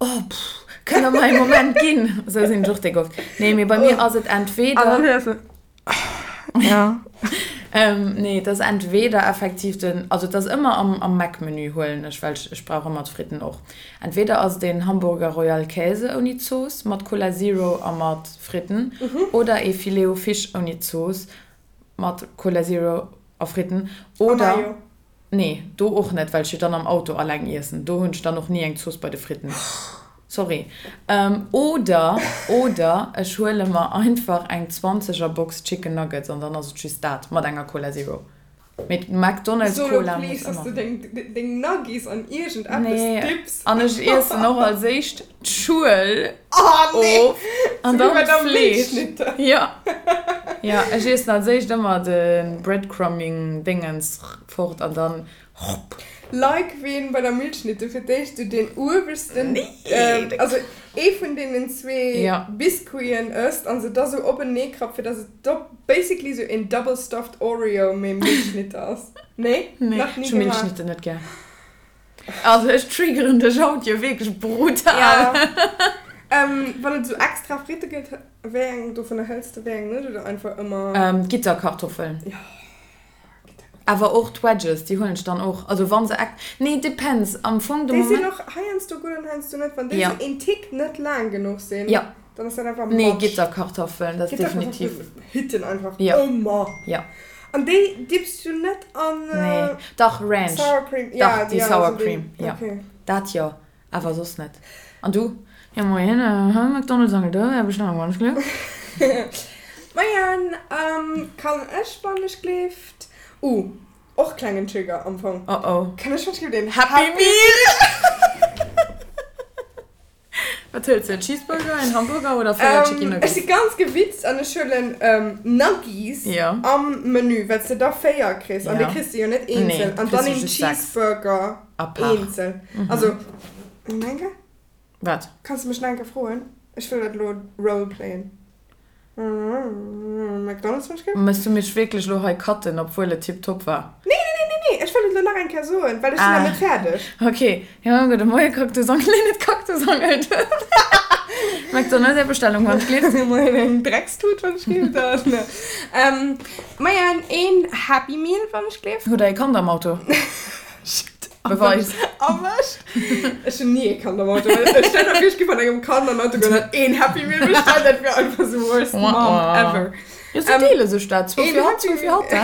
Oh, pff, kënnt der mer ee Moment ginn? Esou sinn ech och déck oft. Nee, mee bei mir ass et entweder. An dann héiers de. Ja. Nee, et ass entweder effektiv den, also et ass ëmmer am, am Mac-Menü huelen ech, well ech, ech brauch ëmmer d'Fritten och. Entweder ass et een Hamburger Royal Käse ouni Zooss mat Cola Zero a mat Fritten oder ee Filet o Fish ouni Zooss mat Cola Zero a Fritten oder, nee, do och net, well ech jo dann am Auto alleng iessen, do hunn ech dann och ni eng Zooss bei de Fritten, sorry. Oder, oder ech huele mer einfach eng 20 er Box Chicken Nuggets an dann ass et just dat mat enger Cola Zero. Mee d'McDonald's Solo Cola muss please, dass ëmmer. du deng, deng Nuggies an iergend eppes Nee, dipps. an ech iessen och als éischt d'Schuel Oh nee! of an Sou wéi dann bei der d'Fleesch. Milchschnitte. Jo, jo, ech iessen als éischt ëmmer de Breadcrumbing-Dingens fort an dann hopp. Like ween bei der Milchschnitte fir d'éischt sou deen ueweschsten, Nee, de. also ee vun deenen zwee Ja. Biscuiten ësst an se da sou openee krappt fir dass et dopp Basically sou een double stuffed Oreo mee Milchschnitte ass. Nee? Nee, Nach ni ech hu gemaach. Milchschnitte net gär. Also ech triggeren dech haut jo wierklech brutal. Ja. Ähm, wann et sou extra Fritte gëtt, wéi eng dovunner hëls de, wéi eng net oder einfach ëmmer? Ähm, Gitterkartoffeln. Jo, Gitterkartoffeln. Awer och d'Wedges, déi huelen ech dann och. Also wann se ex-, nee, depends, am Fong de Déi sinn Moment. och heiansdo gutt an heiansdo net. Wann déi Ja. sou een Tick net laang genuch sinn. Ja. Dann ass dat einfach Nee, Matsch. Gitterkartoffeln, dat ass definitiv. Gitterkartoffeln hitten einfach Ja. ëmmer. Ja. An déi dippst du net an Nee, dach Ranch. Sour Cream? Dach, Ja, déi ja, Sour also déi, Cream, ja. okay. Dat jo, awer soss net. An du? Ja moien, McDonald's Angel do, Är Bestellung wann ech gleeft. Moien, kann ech wann ech gleeft? Uh, och klengen Trigger am Fong. Oh oh. Kann ech wann ech gleeft een Happy Meal? Wat hëls de? En Cheeseburger, en Hamburger oder 4 Chicky Ech Nuggets? si ganz gewitzt an ech huelen Nuggies am Menü, well s de da 4 kriss an déi kriss de jo net eenzel. An dann een Cheeseburger eenzel. Also, Menke? Wat? Kanns de mech nach eng Kéier froen? Ech wëll dat elo roleplayen. McDonald's wann ech gleef. Mëss du mech wierklech elo hei cutten, obwuel et tiptop war? Nee, nee, nee, nee, nee, ech wëll et elo nach eng Kéier soen, well ech sinn nach net fäerdeg. Ah, ok. Jo, gudde Moie Kaktusangel, nee, net Kaktusangel, McDonald's, Är Bestellung wann ech gleef. Moien, eng Dreckstut wann ech gleef, dann. Moien, een Happy Meal wann ech gleef. Hutt der ee Kand am Auto? Shit. Beweis. Erwëscht. Ech hunn ni ee Kand am Auto. Well stell der vir, ech gi mat engem Kand an den Auto goen an een Happy Meal bestellen, dat wier einfach the worst mom ever. Jo, se deele sech dat. Zwou fir hatt, zwou fir hatt, he?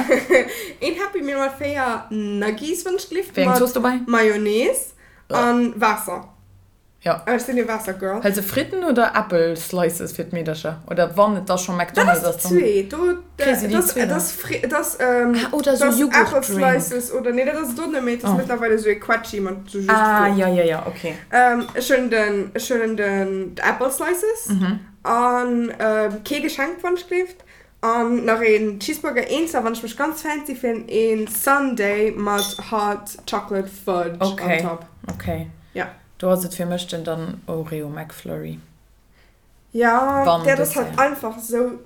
Een Happy Meal mat 4 Nuggies, wann ech gelift, Wéi eng Zooss mat dobäi? Mayonnaise an Waasser. Jo. Ech sinn ee Waasser-Girl. Hëls de Fritten oder Äppel Slices fir d'Meedercher? Oder wann et da scho Dat McDonald's ass ass, déi dann zweet. Do, kriss de déi dat zwee ass, dann. dat ass, dat ass, Ah, oder dat sou ass Apple Jughurt-Drink. Slices oder, nee, dat ass et och net méi. Dat ass Oh. mëttlerweil esou ee Quetschi mat sou just Ah, Fruucht. jo, jo, jo, okay. Ech huelen den, ech huelen den, d'Apple Slices an kee Geschenk, wann ech gleeft. An nach een Cheeseburger eenzel, wann ech mech ganz fancy fillen, een Sundae mat Hot Chocolate Fudge on Okay, top. okay. Ja. Do ass et fir mech den dann Oreo McFlurry. Ja, Wann dat ass halt Dessert. einfach sou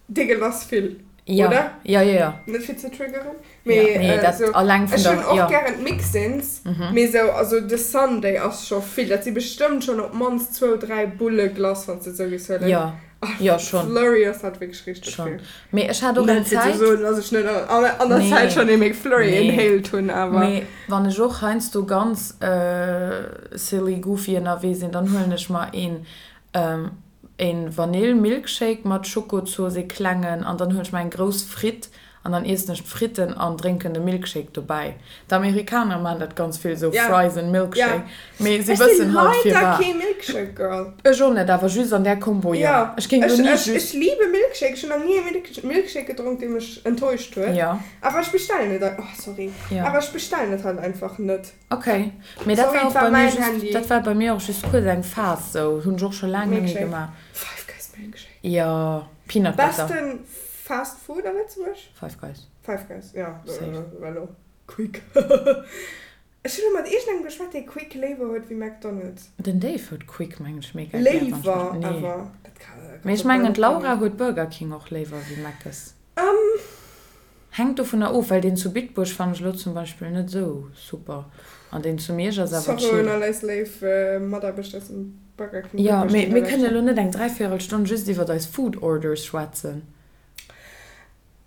deegelass vill, Ja, oder? ja, ja, ja. Net fir ze triggeren, Ja, mee nee, dat sou, alleng vun ech der, hunn och ja. gären d'Mixins, mee sou, also de Sundae ass scho vill, dat si bestëmmt schonn op d'mannst zwou, dräi Bulle Glace, wann s de et sou géifs huelen. Ja, ja, schon. Flurry ass halt wierklech richteg Schon. vill. Mee ech hat och eng Net fir ze Zäit. soen, dass ech net an an der Nee. Zäit schonn ee McFlurry Nee. inhaled hunn, awer. Mee wann ech och heiansdo ganz silly goofy ënnerwee sinn, dann huelen ech mer een een Vanill Milkshake mat Schokozooss, ee klengen, an dann huelen ech mer eng grouss Fritt. An dann iessen ech d'Fritten an drénken de Milkshake dobäi. D'Amerikaner maachen dat ganz vill, esou Fries and Milkshake. Mee si Ech si wëssen halt leider firwat. kee Milkshake Girl. Ech och net, awer just an där Kombo, jo. Jo, Ech géing ech, lo ni ech, just. ech liebe Milkshake. Ech hunn nach ni ee Milk, Milkshake gedronk, dee mech enttäuscht huet. Jo. Awer ech bestellen et, oh sorry, Jo. awer ech bestellen et halt einfach net. Ok, mee dat Sorry, war et och war bei mir mäin just, Handy. dat war bei mir och just kuerz eng Phas sou, hunn ech och scho laang net méi Milkshake. gemaach. Five Guys Milkshake. Jo, Peanut Butter. Besten Fast Food a Lëtzebuerg? Five Guys. Five Guys, jo, Safe. well Quick. Ech hunn elo mat iergendengem geschwat, dee Quick léiwer huet wéi McDonald's. Den Dave huet Quick, mengen ech, mega gär, wann ech mech, Léiwer nee. awer? Dat ka, Mee ka ech mengen bal net d'Laura goen. huet Burger King och léiwer wéi Mc's. Hänkt dovunner of, well deen zu Bitburg fannen ech elo zum Beispill net esou super an deen zu Miersch ass awer Sorry un chill. all eis léif Mataarbechter aus dem Burger King Jo, Bitburg, mee déi mir da kënnen lauschteren. elo net eng Dräivéierelstonn just iwwert eis Food Orders schwätzen.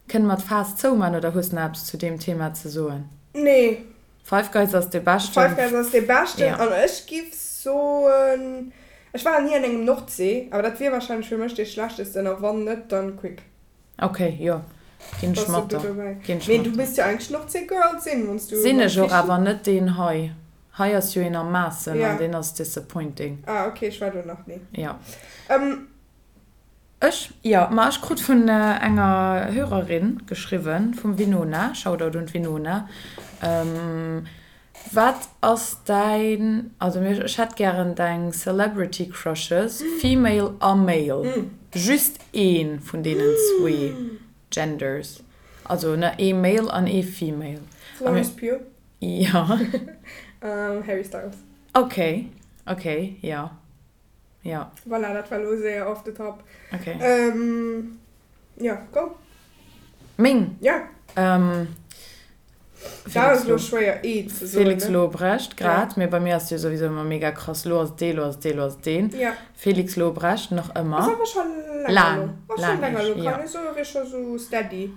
Kënne mer d'Faass zouman oder hues nach eppes zu deem Thema ze soen? Nee. Five Guys ass dee Five beschten. Guys ass dee beschten Jo. an ech giff soen, ech war ni an engem Nordsee, awer dat wier wahrscheinlech fir mech dee schlechtesten a wann net, dann Quick. Ok, jo, ginn ech Bass mat du der. do dobäi? Ginn ech Mee mat du der. misst jo eigentlech Nordsee-Girl sinn, wann s du Sinn beim ech och, Fischi. awer net deen hei. Hei ass jo een am Maassen an Ja. deen ass disappointing. Ah, ok, ech war do nach ni. Jo. Ähm. Ech? Jo, ma ech krut vun enger Hörerin geschriwwen, vum Winona, Shoutout un d'Winona, Wat ass däin, also mir, ech hätt gären deng Celebrity Crushes, female a male, just ee vun deenen zwee Genders, also ne, ee male an ee female. Florence Pugh. Jo. Harry Styles. Ok, ok, jo. Jo. Voilà, dat war elo séier off the top. Ok. Jo, go. Meng? Ja. Ähm, Dat ass elo schwéier ee ze soen, Felix ne? Lobrecht, grad. Ja. Mee bei mir ass jo souwisou ëmmer mega krass, lo ass et dee, lo ass et dee, lo ass et deen. Ja. Felix Lobrecht, nach ëmmer. Ass awer scho länger elo. Laang, Ass scho laang länger echt, elo, ja. kann ee soen, wier scho sou steady.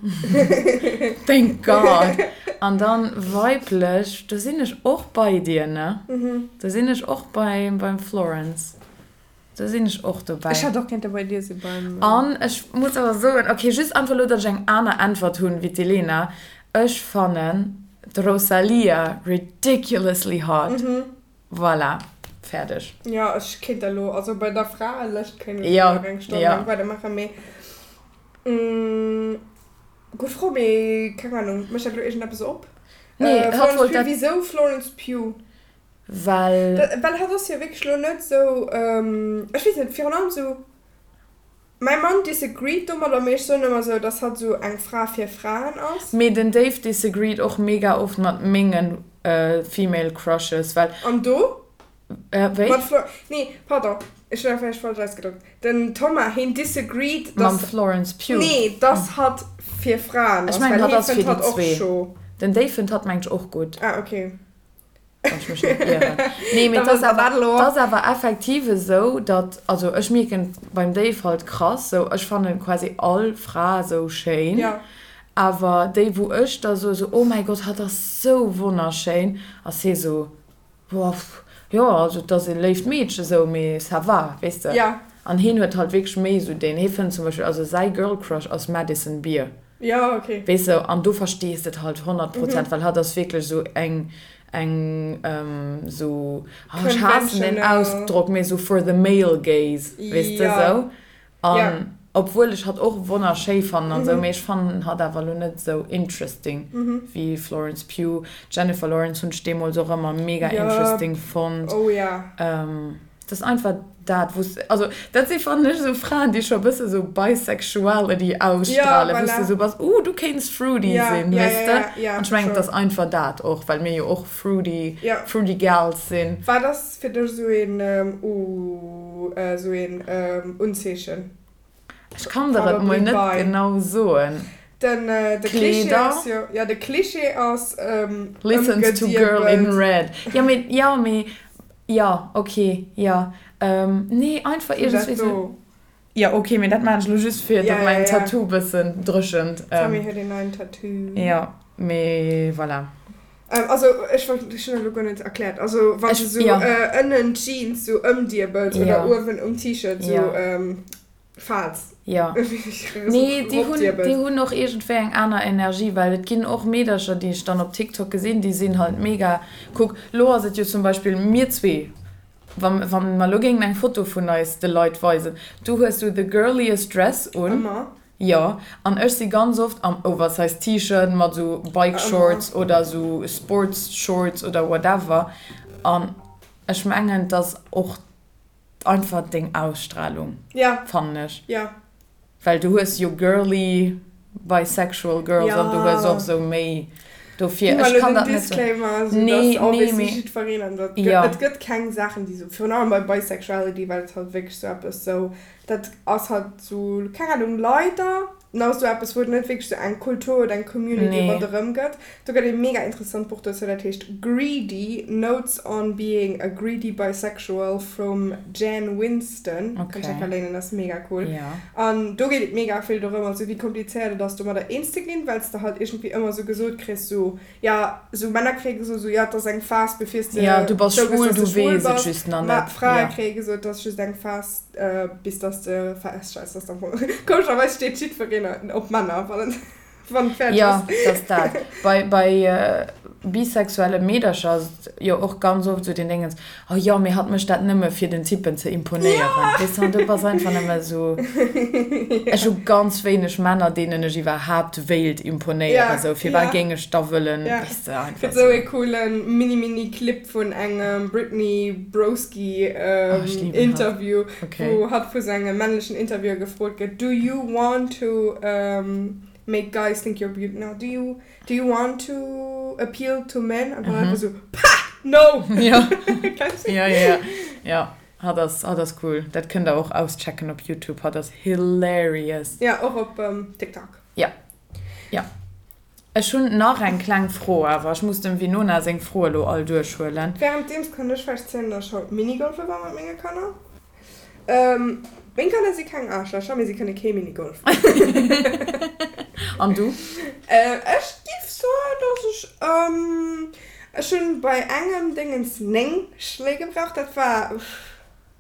Thank God! An dann weiblech, do sinn ech och bei dir, ne? Do sinn ech och bei, beim Florence. Do sinn ech och dobäi. Ech hätt och kéinte bei dir si beim. An ech muss awer soen, ok, just einfach elo, datt ech eng aner Äntwert hunn wéi d'Elena, ech fannen d'Rosalía ridiculously hot. Voilà, fäerdeg. Jo, ech kéint da lo, also bei der Fraelëscht kéint ech elo nach eng Stonn laang weidermaachen, mee gutt Fro, mee keng Ahnung, mécht dat elo iergendeppes op? Nee, hatt Florence wollt Pugh, dat. wisou Florence Pugh? Well. Well hatt ass jo wierklech lo net sou, ech weess net, virun allem sou, mäi Mann disagreed domadder, mee ech soen ëmmer sou, dass hatt sou eng Fra fir Fraen ass. Mee den Dave disagreed och mega oft mat mengen female crushes, well. An do? Wéi? Mat Flo, nee, pardon, ech hunn dat vläicht falsch ausgedréckt. Den Thomas, heen disagreed, Mam dass. Florence Pugh? Nee, dass hatt fir Fraen Ech ass, mengen well hatt hee ass fir fënnt déi hatt och zwee. scho. Den Dave fënnt hatt mengt ech och gutt. Ah, okay. Wann ech mech net ieren. Nee, mee Da et ass wësst der awer, dat elo. et ass awer effektiv esou, datt, also ech mierken beim Dave halt krass, sou ech fannen quasi all Fra sou schéin, Ja. awer déi wou ech da soe sou, oh mäi Gott, hatt ass sou wonnerschéin, ass hee sou, boah, jo, also et ass e léift Meedche sou, mee ça va, weess de. Ja. An heen huet halt wierklech méi sou deen, hee fënnt zum Beispill, also säi Girl Crush ass Madison Beer. Ja, okay. Weess de, an do verstees de et halt 100%, well hatt ass wierklech esou eng, eng esou, oh, ech haassen deen Conventional. Ausdrock, mee esou for the male gaze, weess de, Ja. esou. Ja. An obwuel ech hatt och wonnerschéi fannen an esou, mee ech fannen hatt awer elo net esou interesting wéi Florence Pugh. Jennifer Lawrence hunn ech deemools och ëmmer mega Ja. interesting fonnt. Oh ja. Dat ass einfach dat, wou s, also dat si fannen ech esou Fraen, déi scho e bësse sou Bisexuality ausstrahlen, wou s de esou bass, uh, du kéints fruity sinn, weess de? An ech mengen, et ass einfach dat och, well mir jo och fruity, fruity gals sinn. Wat ass fir dech esou een, uh, esou een Unzeechen? Ech kann der et mol net genau soen. Den de Cliché ass jo, ja de Cliché ass Listens to girl in red. Jo mee, jo mee, jo ok, jo. Nee einfach iergendswéi sou. Jo ok, mee dat maan ech lo just fir datt mäin Tattoo bëssen dréchent. D'Sammy huet een neien Tattoo. Jo mee voilà. Also ech wollt, ech hunn dat elo guer net erkläert. Also wann s de sou ënnen d'Jeans sou ëmdiebels oder uewen um T-Shirt sou. Falls. Jo. Nee, déi hunn, déi hunn och iergendwéi eng aner Energie, well et ginn och Meedercher, déi ech dann op TikTok gesinn, déi sinn halt mega, kuck, lo ass et jo zum Beispill mir zwee, wa, wa mer lo géingen eng Foto vun eis de Leit weisen, du hues sou the girliest dress un. Ëmmer. Jo, an ech si ganz oft am oversized T-Shirt mat sou Bike Shorts oder sou Sports Shorts oder whatever an ech mengen, et ass och einfach deng Ausstrahlung, fannen ech. Well du hues jo girly bisexual girls an du hues och sou méi dofir. Ech kann dat net sou. Disclaimer, sou dass obviously jiddwereen an dat gëtt, et gëtt keng Saachen déi sou, virun allem bei Bisexuality, well et halt wierklech sou eppes sou, dat ass halt sou, keng Ahnung, leider nach sou eppes wou et net wierklech sou eng Kultur oder eng Community ronderëm gëtt. Do gëtt e mega interessant Buch dozou, dat heescht Greedy, Notes on being a greedy bisexual vum Jan Winston. Kann ech enker léinen, ass mega cool. An do geet et mega vill dorëm, also wéi komplizéiert et ass domadder eens ze ginn, well s de halt iergendwéi ëmmer sou gesot kriss, sou jo, sou Männer kréie gesot, sou jo, et ass eng Phas bevir s de zougëss, dass de schwul bass, ma Frae kréie gesot, et ass just eng Phas, Bis dass de feststells, dass am Fong komescherweis steet jiddwereen op Männer, wann et wann et fäerdeg ass. Jo, dass dat. Bei bei bisexuelle Meedercher ass et jo och ganz oft esou den Déngens, oh jo, mee hatt mécht dat nëmme fir den Typen ze imponéieren. Weess de, an du bass einfach nëmme esou, ech hu ganz wéineg Männer, deenen ech iwwerhaapt wéilt imponéieren, esou, firwat géing ech da wëllen, weess de, einfach esou. Gëtt esou ee coole mini-mini-Clip vun engem Brittany Broski Interview, wou hatt vu sengem männlechen Interviewer gefrot gëtt, Do you want to make guys think you're beautiful? No, do you, do you want to appeal to men? An dann einfach sou, Pah! No! Jo, jo, jo, jo, hatt ass, hatt ass cool. Dat kënnt der och auschecken op YouTube, hatt ass hilarious. Jo, och op TikTok. Jo, jo. Ech hunn nach eng kleng Fro, awer ech muss dem Winona seng Froe elo all duerchhuelen. Währenddeems kann ech vläicht zielen, dass ech haut Minigolfe war mat menge Kanner. Meng Kanner si keng Aarschlächer, mee si kënne kee Minigolf. An du? Ech giff soen, dass ech, ech hunn bei engem Déngens 9 Schléi gebraucht. Dat war,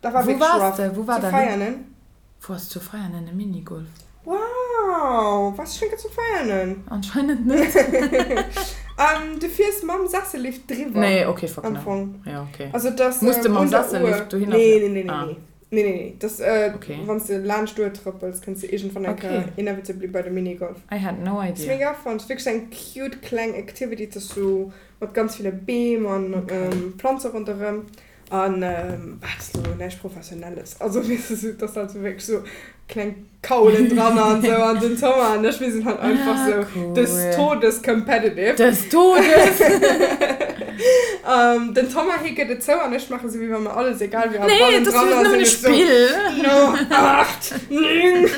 dat war Wou wierklech waars rough. de? Wou war Zu dat? Veianen. Wou ass zu Veianen e Minigolf? Wow, waars du schon zu Veianen? Anscheinend net. Um, du fiers mam Sessellift driwwer. Nee, okay, fuck am no. Fong. Ja, okay. Also dass Muss de ähm, mam un der Sessellift Uhr. dohinner Nee, fieren? nee, nee, nee, Ah. nee. Nee, nee, nee. Das, äh, Okay. wann s de laanscht d'Uhr trëppels, kënns de iergendwann eng Okay. Kéier inevitably bei de Minigolf. I had no Ass idea. mega fun. Ass wierklech eng cute kleng Activity. Et ass sou mat ganz ville Beem an Okay. ähm, Planze ronderëm. An wat ass elo näischt Professionelles. Also weess de, sou, et ass halt sou wierklech sou kleng Kaulen dran an sou an den Thomas an ech, mir sinn halt einfach Ah, sou cool. des Todes competitive. Des Todes! Den Thomas, hie gëtt et zou an ech maache sou, wéi wa mir alles egal wier a Nee, et ass bannendran just ass nëmmen e ech sou, Spill. No, 8, 9.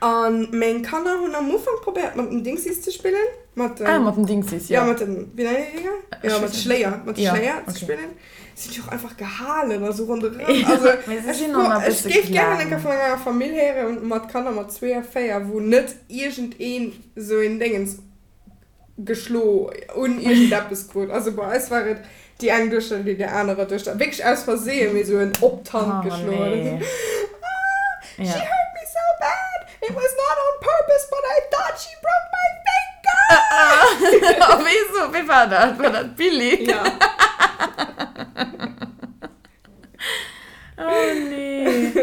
An meng Kanner hunn am Ufank probéiert mat den Dingsies ze spillen. Mat den, ah, mat den Dingsies, jo. Ja, mat den, wéi nennen déi Dinger? Ja, mat de Schléier, mat de ja, Schléier ze okay. spillen. Si hunn déi och einfach gehalen a sou ronderëm. Also, Mee se ech, sinn och nach e ech bësse géif gären eng kleng. Kéier vun enger Famill héieren mat Kanner mat zwee a véier, wou net iergendeen sou een Déngens geschlo un iergendeppes krut. Also bei eis war et déi eng Duechter, déi där anerer Duechter wierklech aus Versehen mee sou en op d'Hand Oh geschloen huet. nee. Ah, she Ja. hurt me so bad, it was not on purpose, but I thought she broke my finger! A wéi sou, wéi war dat? War dat d'Billie? Ja. Oh nee.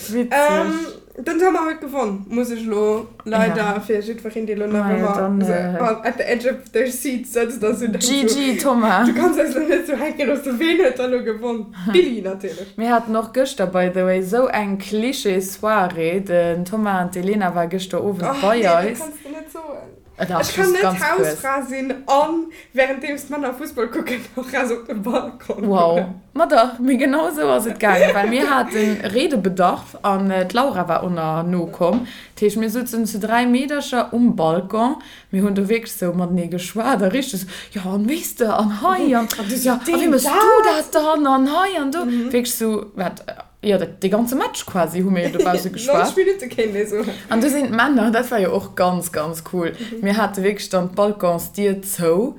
Witzeg. Ähm, den Thomas huet gewonn, muss ech elo leider Ja. fir jiddwereen, dee elo nach Majo, ëmmer dann, so äh, an at the edge of their seat sëtzt a sou denkt so, GG, Thomas. Du kanns eis elo net sou hänke loossen, ween huet da elo gewonn? D'Billie natierlech. Mir haten och gëschter, by the way, sou eng Klischee-Soirée. Den Thomas an d'Elena war gëschter Owend Och bei nee, dat eis. kanns de net soen. Dach, Ech kann just net ganz kuerz. Hausfra sinn an währenddeems d'Männer Fussball kucken och raus op de Balcon Wow. goen. Ma dach, mee genau esou ass et gaangen, well mir hate Redebedarf an d'Laura war och nach nokomm. Dat heescht, mir souzen zu 3 Meedercher um Balcon, mir hunn do wierklech esou matenee geschwat a richteg esou, jo an weess de an hei an jo a wéi méchs du dat dann an hei an do. Wierklech esou, wat Jo, dat, dee ganze Match quasi hu mir jo dobausse geschwat. 90 Minutte kéint ee soen. An du sinn d'Männer, dat war jo och ganz, ganz cool. Mir hate wierklech dann d'Balconsdier zou.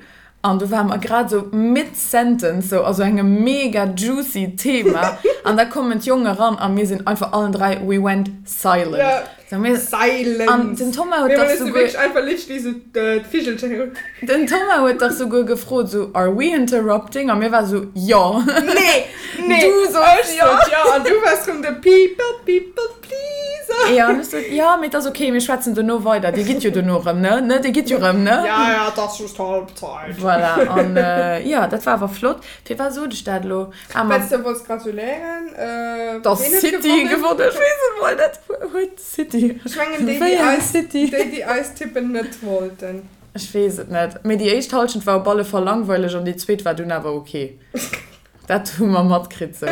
An du ware mer grad esou mid-sentence, sou a sou engem mega juicy Thema, an da kommen d'Jongen eran a mir sinn einfach allen 3, we went silent. Ja, So mir, silence. An den Thomas huet Mir dach hunn souguer. wierklech einfach literally sou d'Vigelcher héieren. Den Thomas huet dach souguer gefrot sou, are we interrupting? A mir war sou, jo. Nee, nee. Du soss Ech jo. sot jo an du waars rëm de people, people pleaser. Jo, an ech sot, jo, mee et ass ok, mir schwätzen dono weider. Dir gitt jo dono erëm, ne? Ne, dir gitt jo erëm, ne? Ja, ja, et ass just Halbzeit. Voilà, an jo, dat war awer flott. Firwat sot ech dat elo? Ah, ma. Well s de wollts gratuléieren. Dass Ween huet City gewonnen? gewonnen, ech weess et mol net. Huet City? Ech mengen déi, Wéi déi eng eis, City? déi, déi eis tippen net wollten. Ech weess et net. Mee déi éischt Halschent war op alle Fall langweileg an déi zweet war dunn awer ok. Dat hu mer matkritt sou.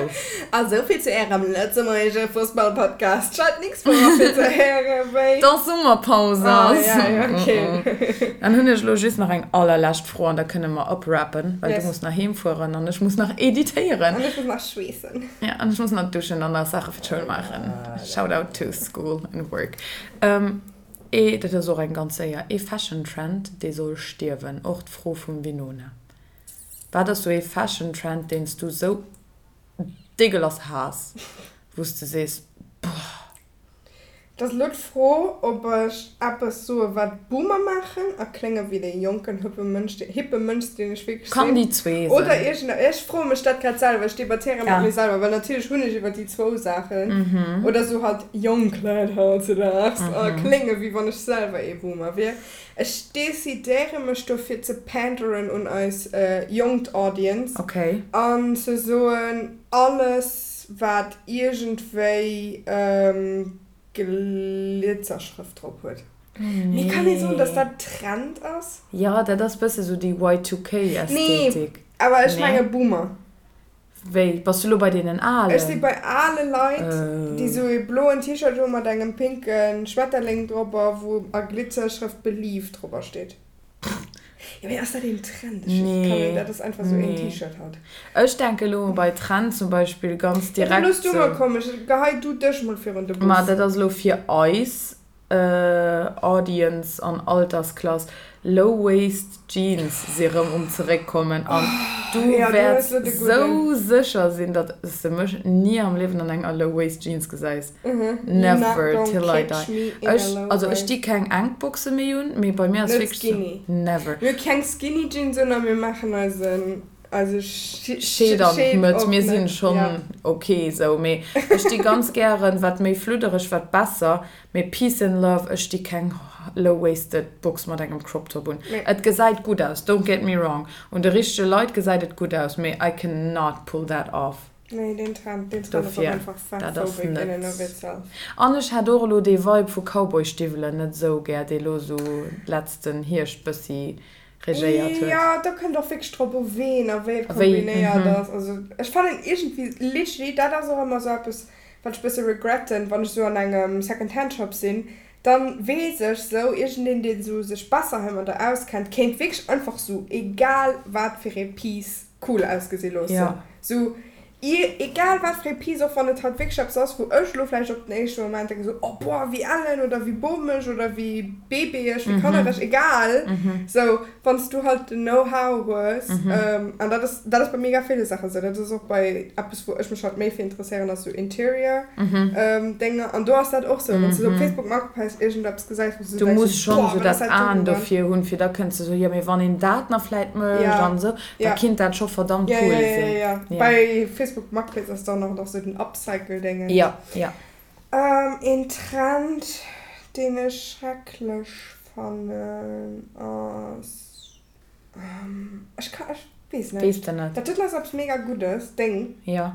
A souvill zu ärem lëtzebuergesche Fussballpodcast. Schalt nächst Woch a fir ze héiere wéi. Dass Summerpaus ass. Ah, ja, ja, ok. Dann hunn ech elo just nach eng allerlescht Fro an da kënne mer uprappen, well Yes. du muss nach heem fueren an ech muss nach editéieren. An ech muss nach schweessen. Ja, an ech muss nach duschen an nach Saache fir d'Schoul maachen. Shout out to school and work. Ee, dat ass och eng ganz séier, ee Fashion Trend, dee soll stierwen? Och d'Fro vum Winona. Wat ass sou ee Fashion Trend deen s du sou dégueulasse haass, wou s de sees, boah. Et ass elo d'Fro, ob ech eppes soe wat Boomer maachen a klénge wéi dee jonken hippe Mënsch, hippe Mënsch deen ech wierklech Kann sinn, déi zwee oder sinn. iergend, ech froe mech dat grad selwer, ech debattéiere mat Ja. mir selwer, well natierlech hunn ech iwwer déi zwou Saachen, oder sou halt jonk Leit hautzedaags a klénge wéi wann ech selwer ee Boomer wier. Ech decidéiere mech dofir ze panderen un eis jonkt Audience Okay. an ze soen, alles wat iergendwéi Glitzerschrëft drop huet. Mee kann ee soen, dass dat Trend ass? Jo, dat ass bësse sou déi Nee, Y2K-Ästhetik. awer ech Nee? menge Boomer. Wéi, bass du lo bei deenen Ech si Alen? bei ale Leit, déi sou ee bloen T-Shirt hu mat engem pinke Schmetterling dropper, wou a Glitzerschrëft Believe dropper steet. Jo, mee ass dat een Trend? Ech weess, kann een, Nee, dat ass einfach sou een nee. T-Shirt halt. Ech denke lo bei Trend zum Beispill ganz Jo, da direkt looss du mol sou. kommen, ech gehei du dech mol virun de Ma Bus. dat ass lo fir eis. Audience an Altersklass, Low Waist Jeans si rëm um zeréckkommen an du Ja, du wäerts hues lo de gudden. sou sécher sinn, datt s de mech ni am Liewen an enger Low Waist Jeans gesäis. Mhm, you're not Never gonna till I catch die. me in a Ech, low also ech waist. di keng enk Boxe méi un, mee bei mir ass Net wierklech sou, skinny. never. Mir hu keng Skinny Jeans un a mir maachen eisen, eise Scheed an Scheed d'Mëtt, op, mir sinn ne? schonn Ja. ok sou, mee ech di ganz gären, wat méi fluddereg, wat besser. Mee peace and love, ech di keng low waisted Box mat engem Crop Top un. Nee. Et gesäit gutt aus, don't get me wrong, un de richtege Leit gesäit et gutt aus, mee I can not pull that off. Nee, deen Trend, deen Trend ass och Dofir, einfach dat ass fatphobic in and net. of itself. An ech hat och elo dee Vibe vu Cowboystiwwelen net esou gär, dee lo sou letzten Hierscht bëssi regéiert huet. Jo, do kënnt och wierklech drop u ween a wéi et A wéi, kombinéiert mhm. ass. Also ech fannen iergendwéi literally, dat ass och ëmmer sou eppes, wat ech bësse regretten, wann ech sou an engem Second Hand Shop sinn, dann weess ech sou, iergendeen deen sou sech besser heimadder auskennt, kéint wierklech einfach sou egal wat fir ee Piece cool ausgesi loossen. Ja. Sou egal wat fir ee Piece, och wann et halt wierklech eppes ass, wou ech elo vläicht op den éischte Moment denken sou, oh boah, wéi ellen oder wéi bomesch oder wéi babyeg, wéi kannereg, egal, sou wann s du halt den Know-how hues, an dat ass, dat ass bei mega ville Saachen esou, dat ass och bei eppes wou ech mech halt méi fir interesséieren, ass sou Interior Dénger, an do ass dat och sou, wann s du sou op Facebook Marketplace iergendeppes gesäis, wou s du Du denkst muss sou, schonn boah, sou wat ass dat dat Aen doten dann? dofir hunn, fir da kënns de sou, jo mee wann een dat nach vläit mécht Ja, an esou, da ja. kinnt dat scho verdammt Ja, cool ja, ja, sinn. ja, ja. Ja. Bei Facebook Marketplace ass dann och nach sou den Upcycle-Déngens. Ja, ja. Een Trend, deen ech schrecklech fannen ass, ech ka, ech weess net. Weess de net. Dat doten ass eppes mega Guddes, deng Jo.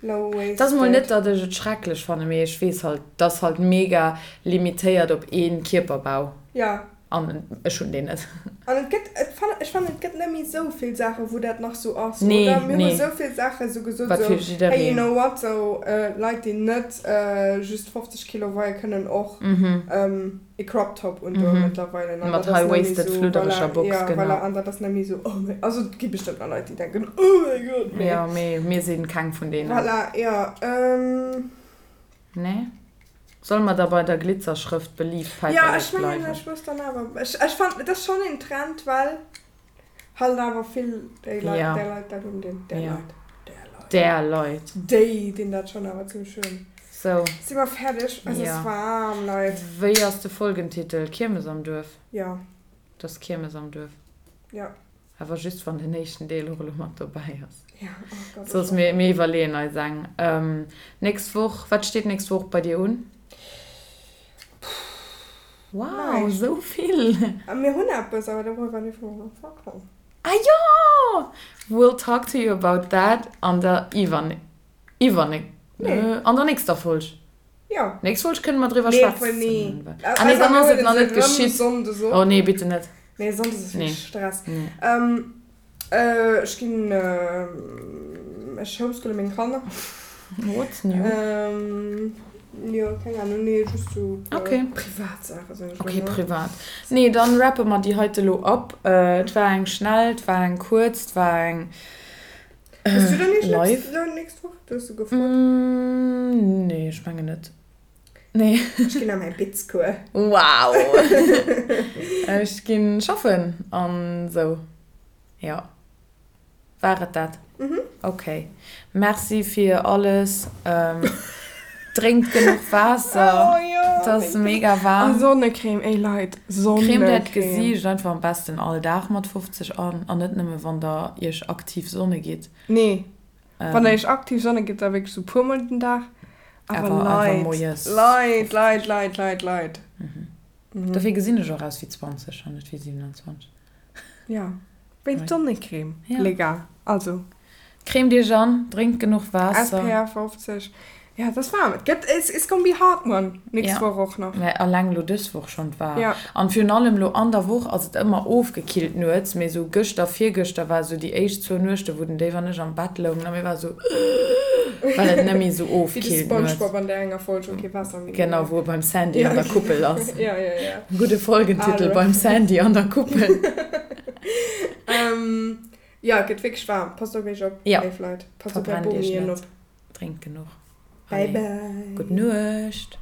low Et ass mol net, waisted. datt ech et schrecklech fannen, mee ech weess halt, et ass halt mega limitéiert op ee Kierperbau. Jo. An ech hunn deen net. An et gëtt, et fannen, ech fannen et gëtt net méi esou vill Saachen, wou dat nach esou ass, Nee, oder? Mir hu nee. esou vill Saachen esou gesot, Wat esou, fir hey, you jiddereen. know what, esou Leit, déi net just 50 Kilo weie kënnen och e Crop Top undoen mëttlerweile. An Mat dat ass net méi high-waisted, esou, fluddereger voilà, Box, ja, genau. voilà, an dat ass net méi esou, oh mein, also et gi bestëmmt nach Leit, déi denken, oh mein Gott, mee. Jo, mee mir si keng vun deenen. Voilà, jo. Nee? Solle mer da bei der Glitzerschrëft Believe Ja, Päiperlek ech mengen, bleiwen? ech muss dann awer, ech, ech fannen, et ass schonn een Trend, well Halt awer vill déi Leit, där Leit dat un, deen, där Leit, där Leit. Där Leit. Déi dinn dat schonn awer zimmlech un. Sou. Si mer fäerdeg? Es ass waarm, Leit. Wéi ass de Folgentitel? Kiermes am Duerf? Jo. Et ass Kiermes am Duerf. Jo. Awer just wann den éischten Deel och elo mat dobäi ass. Jo, oh Gott. Soss mir, mir iwwerleeën eis eng. Nächst Woch, wat steet nächst Woch bei dir un? Wow, Näischt. esou vill! Mir hunn eppes, awer doriwwer dierfe mer nach schwätzen. Ah jo! We'll talk to you about that an der iwwer, iwwer, Nee. an der nächster Folg. Jo. Nächst Folg kënne mer driwwer Nee, schwätzen. obwuel, nee. Ah nee, dann ass et nach net geschitt. Sonndes op. Oh nee, bitte net. Nee, Sonndes ass Nee. wierklech Stress. Nee. Ähm, äh, ech ginn, äh, ech homeschoole meng Kanner. What's new? Ähm, jo, keng Ahnung, nee, just sou e puer Okay. privat Saachen, soen ech Okay, mol, ne? privat. Nee, dann rappe mer déi heite lo ab. Äh, et war eng schnell, et war eng kuerz, et war eng. Hues du dann nächst, Live? Lo nächst Woch? Du hues du gefrot. Mm, nee, ech mengen net. Nee. Ech ginn a mäi Bitzcours. Wow! Ech ginn schaffen an sou. Jo. War et dat? Mhm. Ok. Merci fir alles. Drénkt genuch Waasser. Oh jo. Et ass mega waarm. A Sonnecreme, ey Leit, Sonnecreme. Cremt äert Gesiicht einfach am besten all Dag mat 50 an, an net nëmme wann der iech aktiv Sonne gitt. Nee, wann der iech aktiv Sonne gitt, da wierklech sou puer mol den Dag. Awer Leit, Leit, Leit, Leit, Leit, Leit. Dofir gesinn ech och aus wéi 20 an net wéi 27. Jo, wéinst Sonnecreme, les gars. Also. Cremt iech an, drénkt genuch Waasser. SPF 50. Jo, et ass waarm. Et gëtt, it's gonna be hot one nächst Woch och nach. Mä alleng lo dës Woch schonn, et war. An virun allem lo an der Woch ass et ëmmer ofgekillt nuets, mee sou gëschter, virgëschter war sou déi éischt zwou Nuechte wou den Dave an ech am Bett loungen a mir ware sou well et net méi sou Wéi de ofkillt nuets. Spongebob an där enger Folg, wou kee Waasser méi Genau, wou e beim Sandy an der Kuppel ass. Jo, jo, jo. Gudde Folgentitel, Beim Sandy an der Kuppel. Jo, et gëtt wierklech waarm. Passt op iech op, léif Leit. Passt op är Verbrennt iech Bomien net. op. Drénkt genuch. Bye bye. Gutt Nuecht.